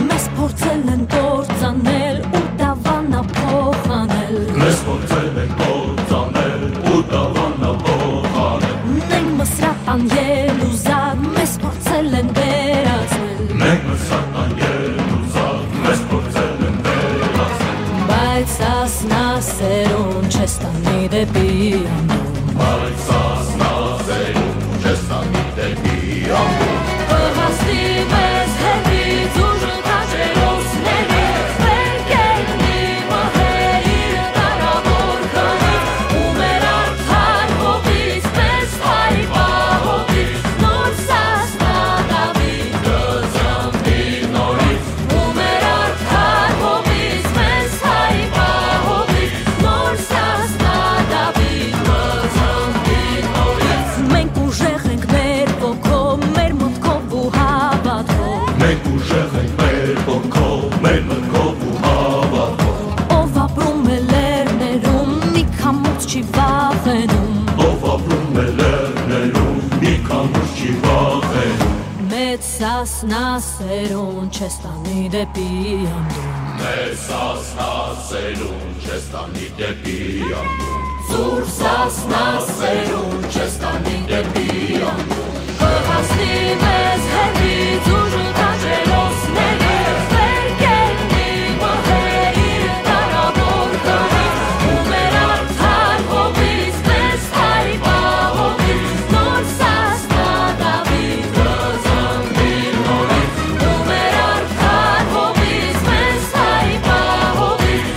Մեզ փորձել են կործանել ու դավանա փոխանել։ Մեզ փորձել են կործանել ու դավանա փոխանել։ Մենք մսրատան ելուզակ, մեզ փորձել են վերածել։ Մենք մսրատան ելուզակ, մեզ փորձել են վերածել։ Բայց սասնա սերուն չես տանի դեպի անդուն։ Բայց սասնա սերուն չես տանի դեպի անդուն։ Կհասնի մեզ հետից ուժ քաջերոսների, վեր կետնի մահերի կարաւոր քարից, ու մեր արդար հողից մեզ հայ պահողից նոր սասնա Դաւիթ կծնվի նորից, ու մեր արդար հողից մեզ հայ պահողից նոր սասնա Դաւիթ կծնվի նորից։ Մենք ուժեղ ենք մեր ոգով, մեր մտքով ու հավատքով։ Մենք ուժեղ ենք մեր ոգով, մեր մտքով ու հավատքով։ Ով ապրում է լեռներում, մի քամուց չի վախենում։ Ով ապրում է լեռներում, մի քամուց չի վախենում։ Մեծ սասնա սերուն չես տանի դեպի անդուն։ Մեծ սասնա սերուն չես տանի դեպի անդուն։ Ծուռ սասնա սերուն չես տանի դեպի անդուն։ Կհասնի մեզ հետից ուժ քաջերոսների, վեր կետնի մահերի կարաւոր քարից, ու մեր արդար հողից մեզ հայ պահողից նոր սասնա Դաւիթ կծնվի նորից, ու մեր արդար հողից մեզ հայ պահողից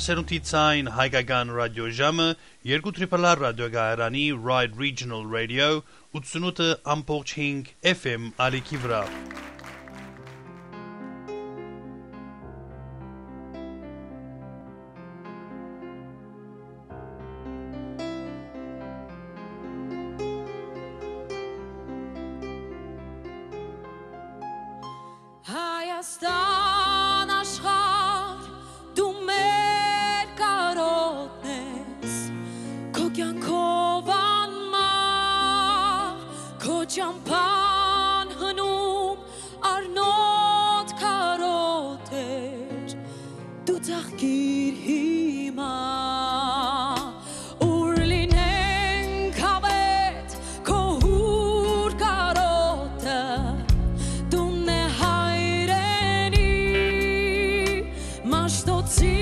Սերունդի ցայն հայկական ռադիոժամը երկու Triple R ռադիոկայարանի Ride Regional Radio ութսունութ ամբողջ հինգ F M ալիքի վրայ։ Հայաստան աշխարհ, դու մեր կարօտն ես, քո կեանքով անմահ, քո ճամբան հնում առնոտ կարօտ էր, դու ծաղկիր հիմա, ուր լինենք հավետ քո հուր կարօտը, տունն է հայրենի, Մաշտոցի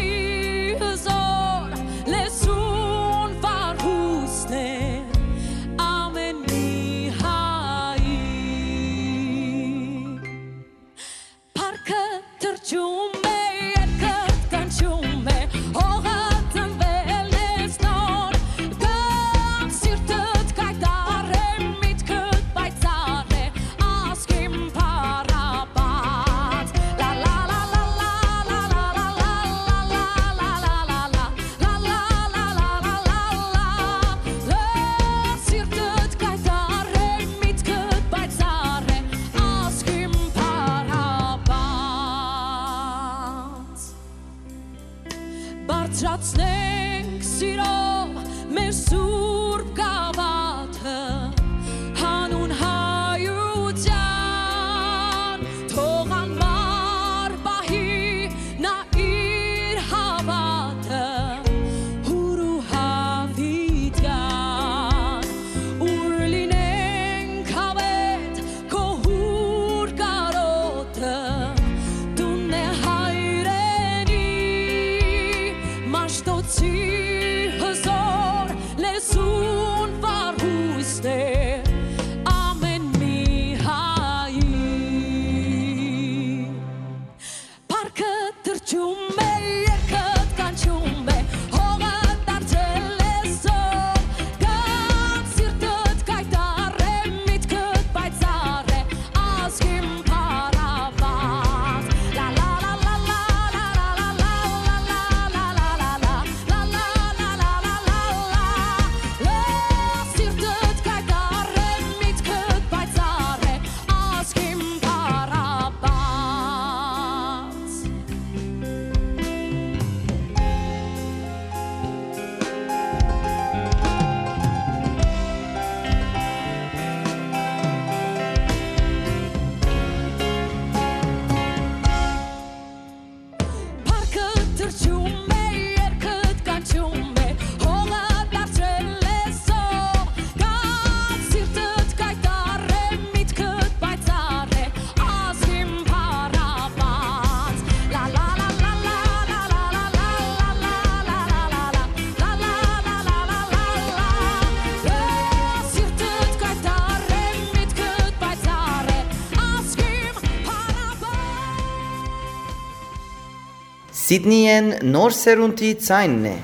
հզոր լեզուն վարհուսն է ամէն մի հայի։ Փառքը թռչում է, երգը կանչում է, հողը տնվել ես նոր, կան սիրտդ կայտառ է, միտքդ պայծառ է, ազգին փառապանծ։ Լա, լա, լա, լա, լա, սիրտդ կայտառ է, միտքդ պայծառ է, ազգին փառապանծ։ Բարձրացնենք սիրով մեր սուրբ գավաթը, հանուն հայության, թող անմար պահի նա իր հաւատը, հուր ու հավիտյան, ուր լինենք հավետ քո հուր կարօտը, տունն է հայրենի, Մաշտոցի հզոր լեզուն վարհուսն է ամէն մի հայի։ Փառքը թռչում է, երգը կանչում է, հողը դարձել է զոր, կան սիրտդ կայտառ է, միտքդ պայծառ է, ազգին փառապանծ։ Լա, լա, լա, լա, սիրտդ կայտառ է, միտքդ պայծառ է, ազգին փառապանծ։ Փառքը թռչում է, երգը կանչում է, հողը դարձել է զով, կան սիրտդ կայտառ է, միտքդ պայծառ է, ազգին փառապանծ։ Լա, լա, լա, սիրտդ կայտառ է, միտքդ պայծառ է, ազգին փառապանծ։ Սիդնիեն նոր սերունդի ձայնն է։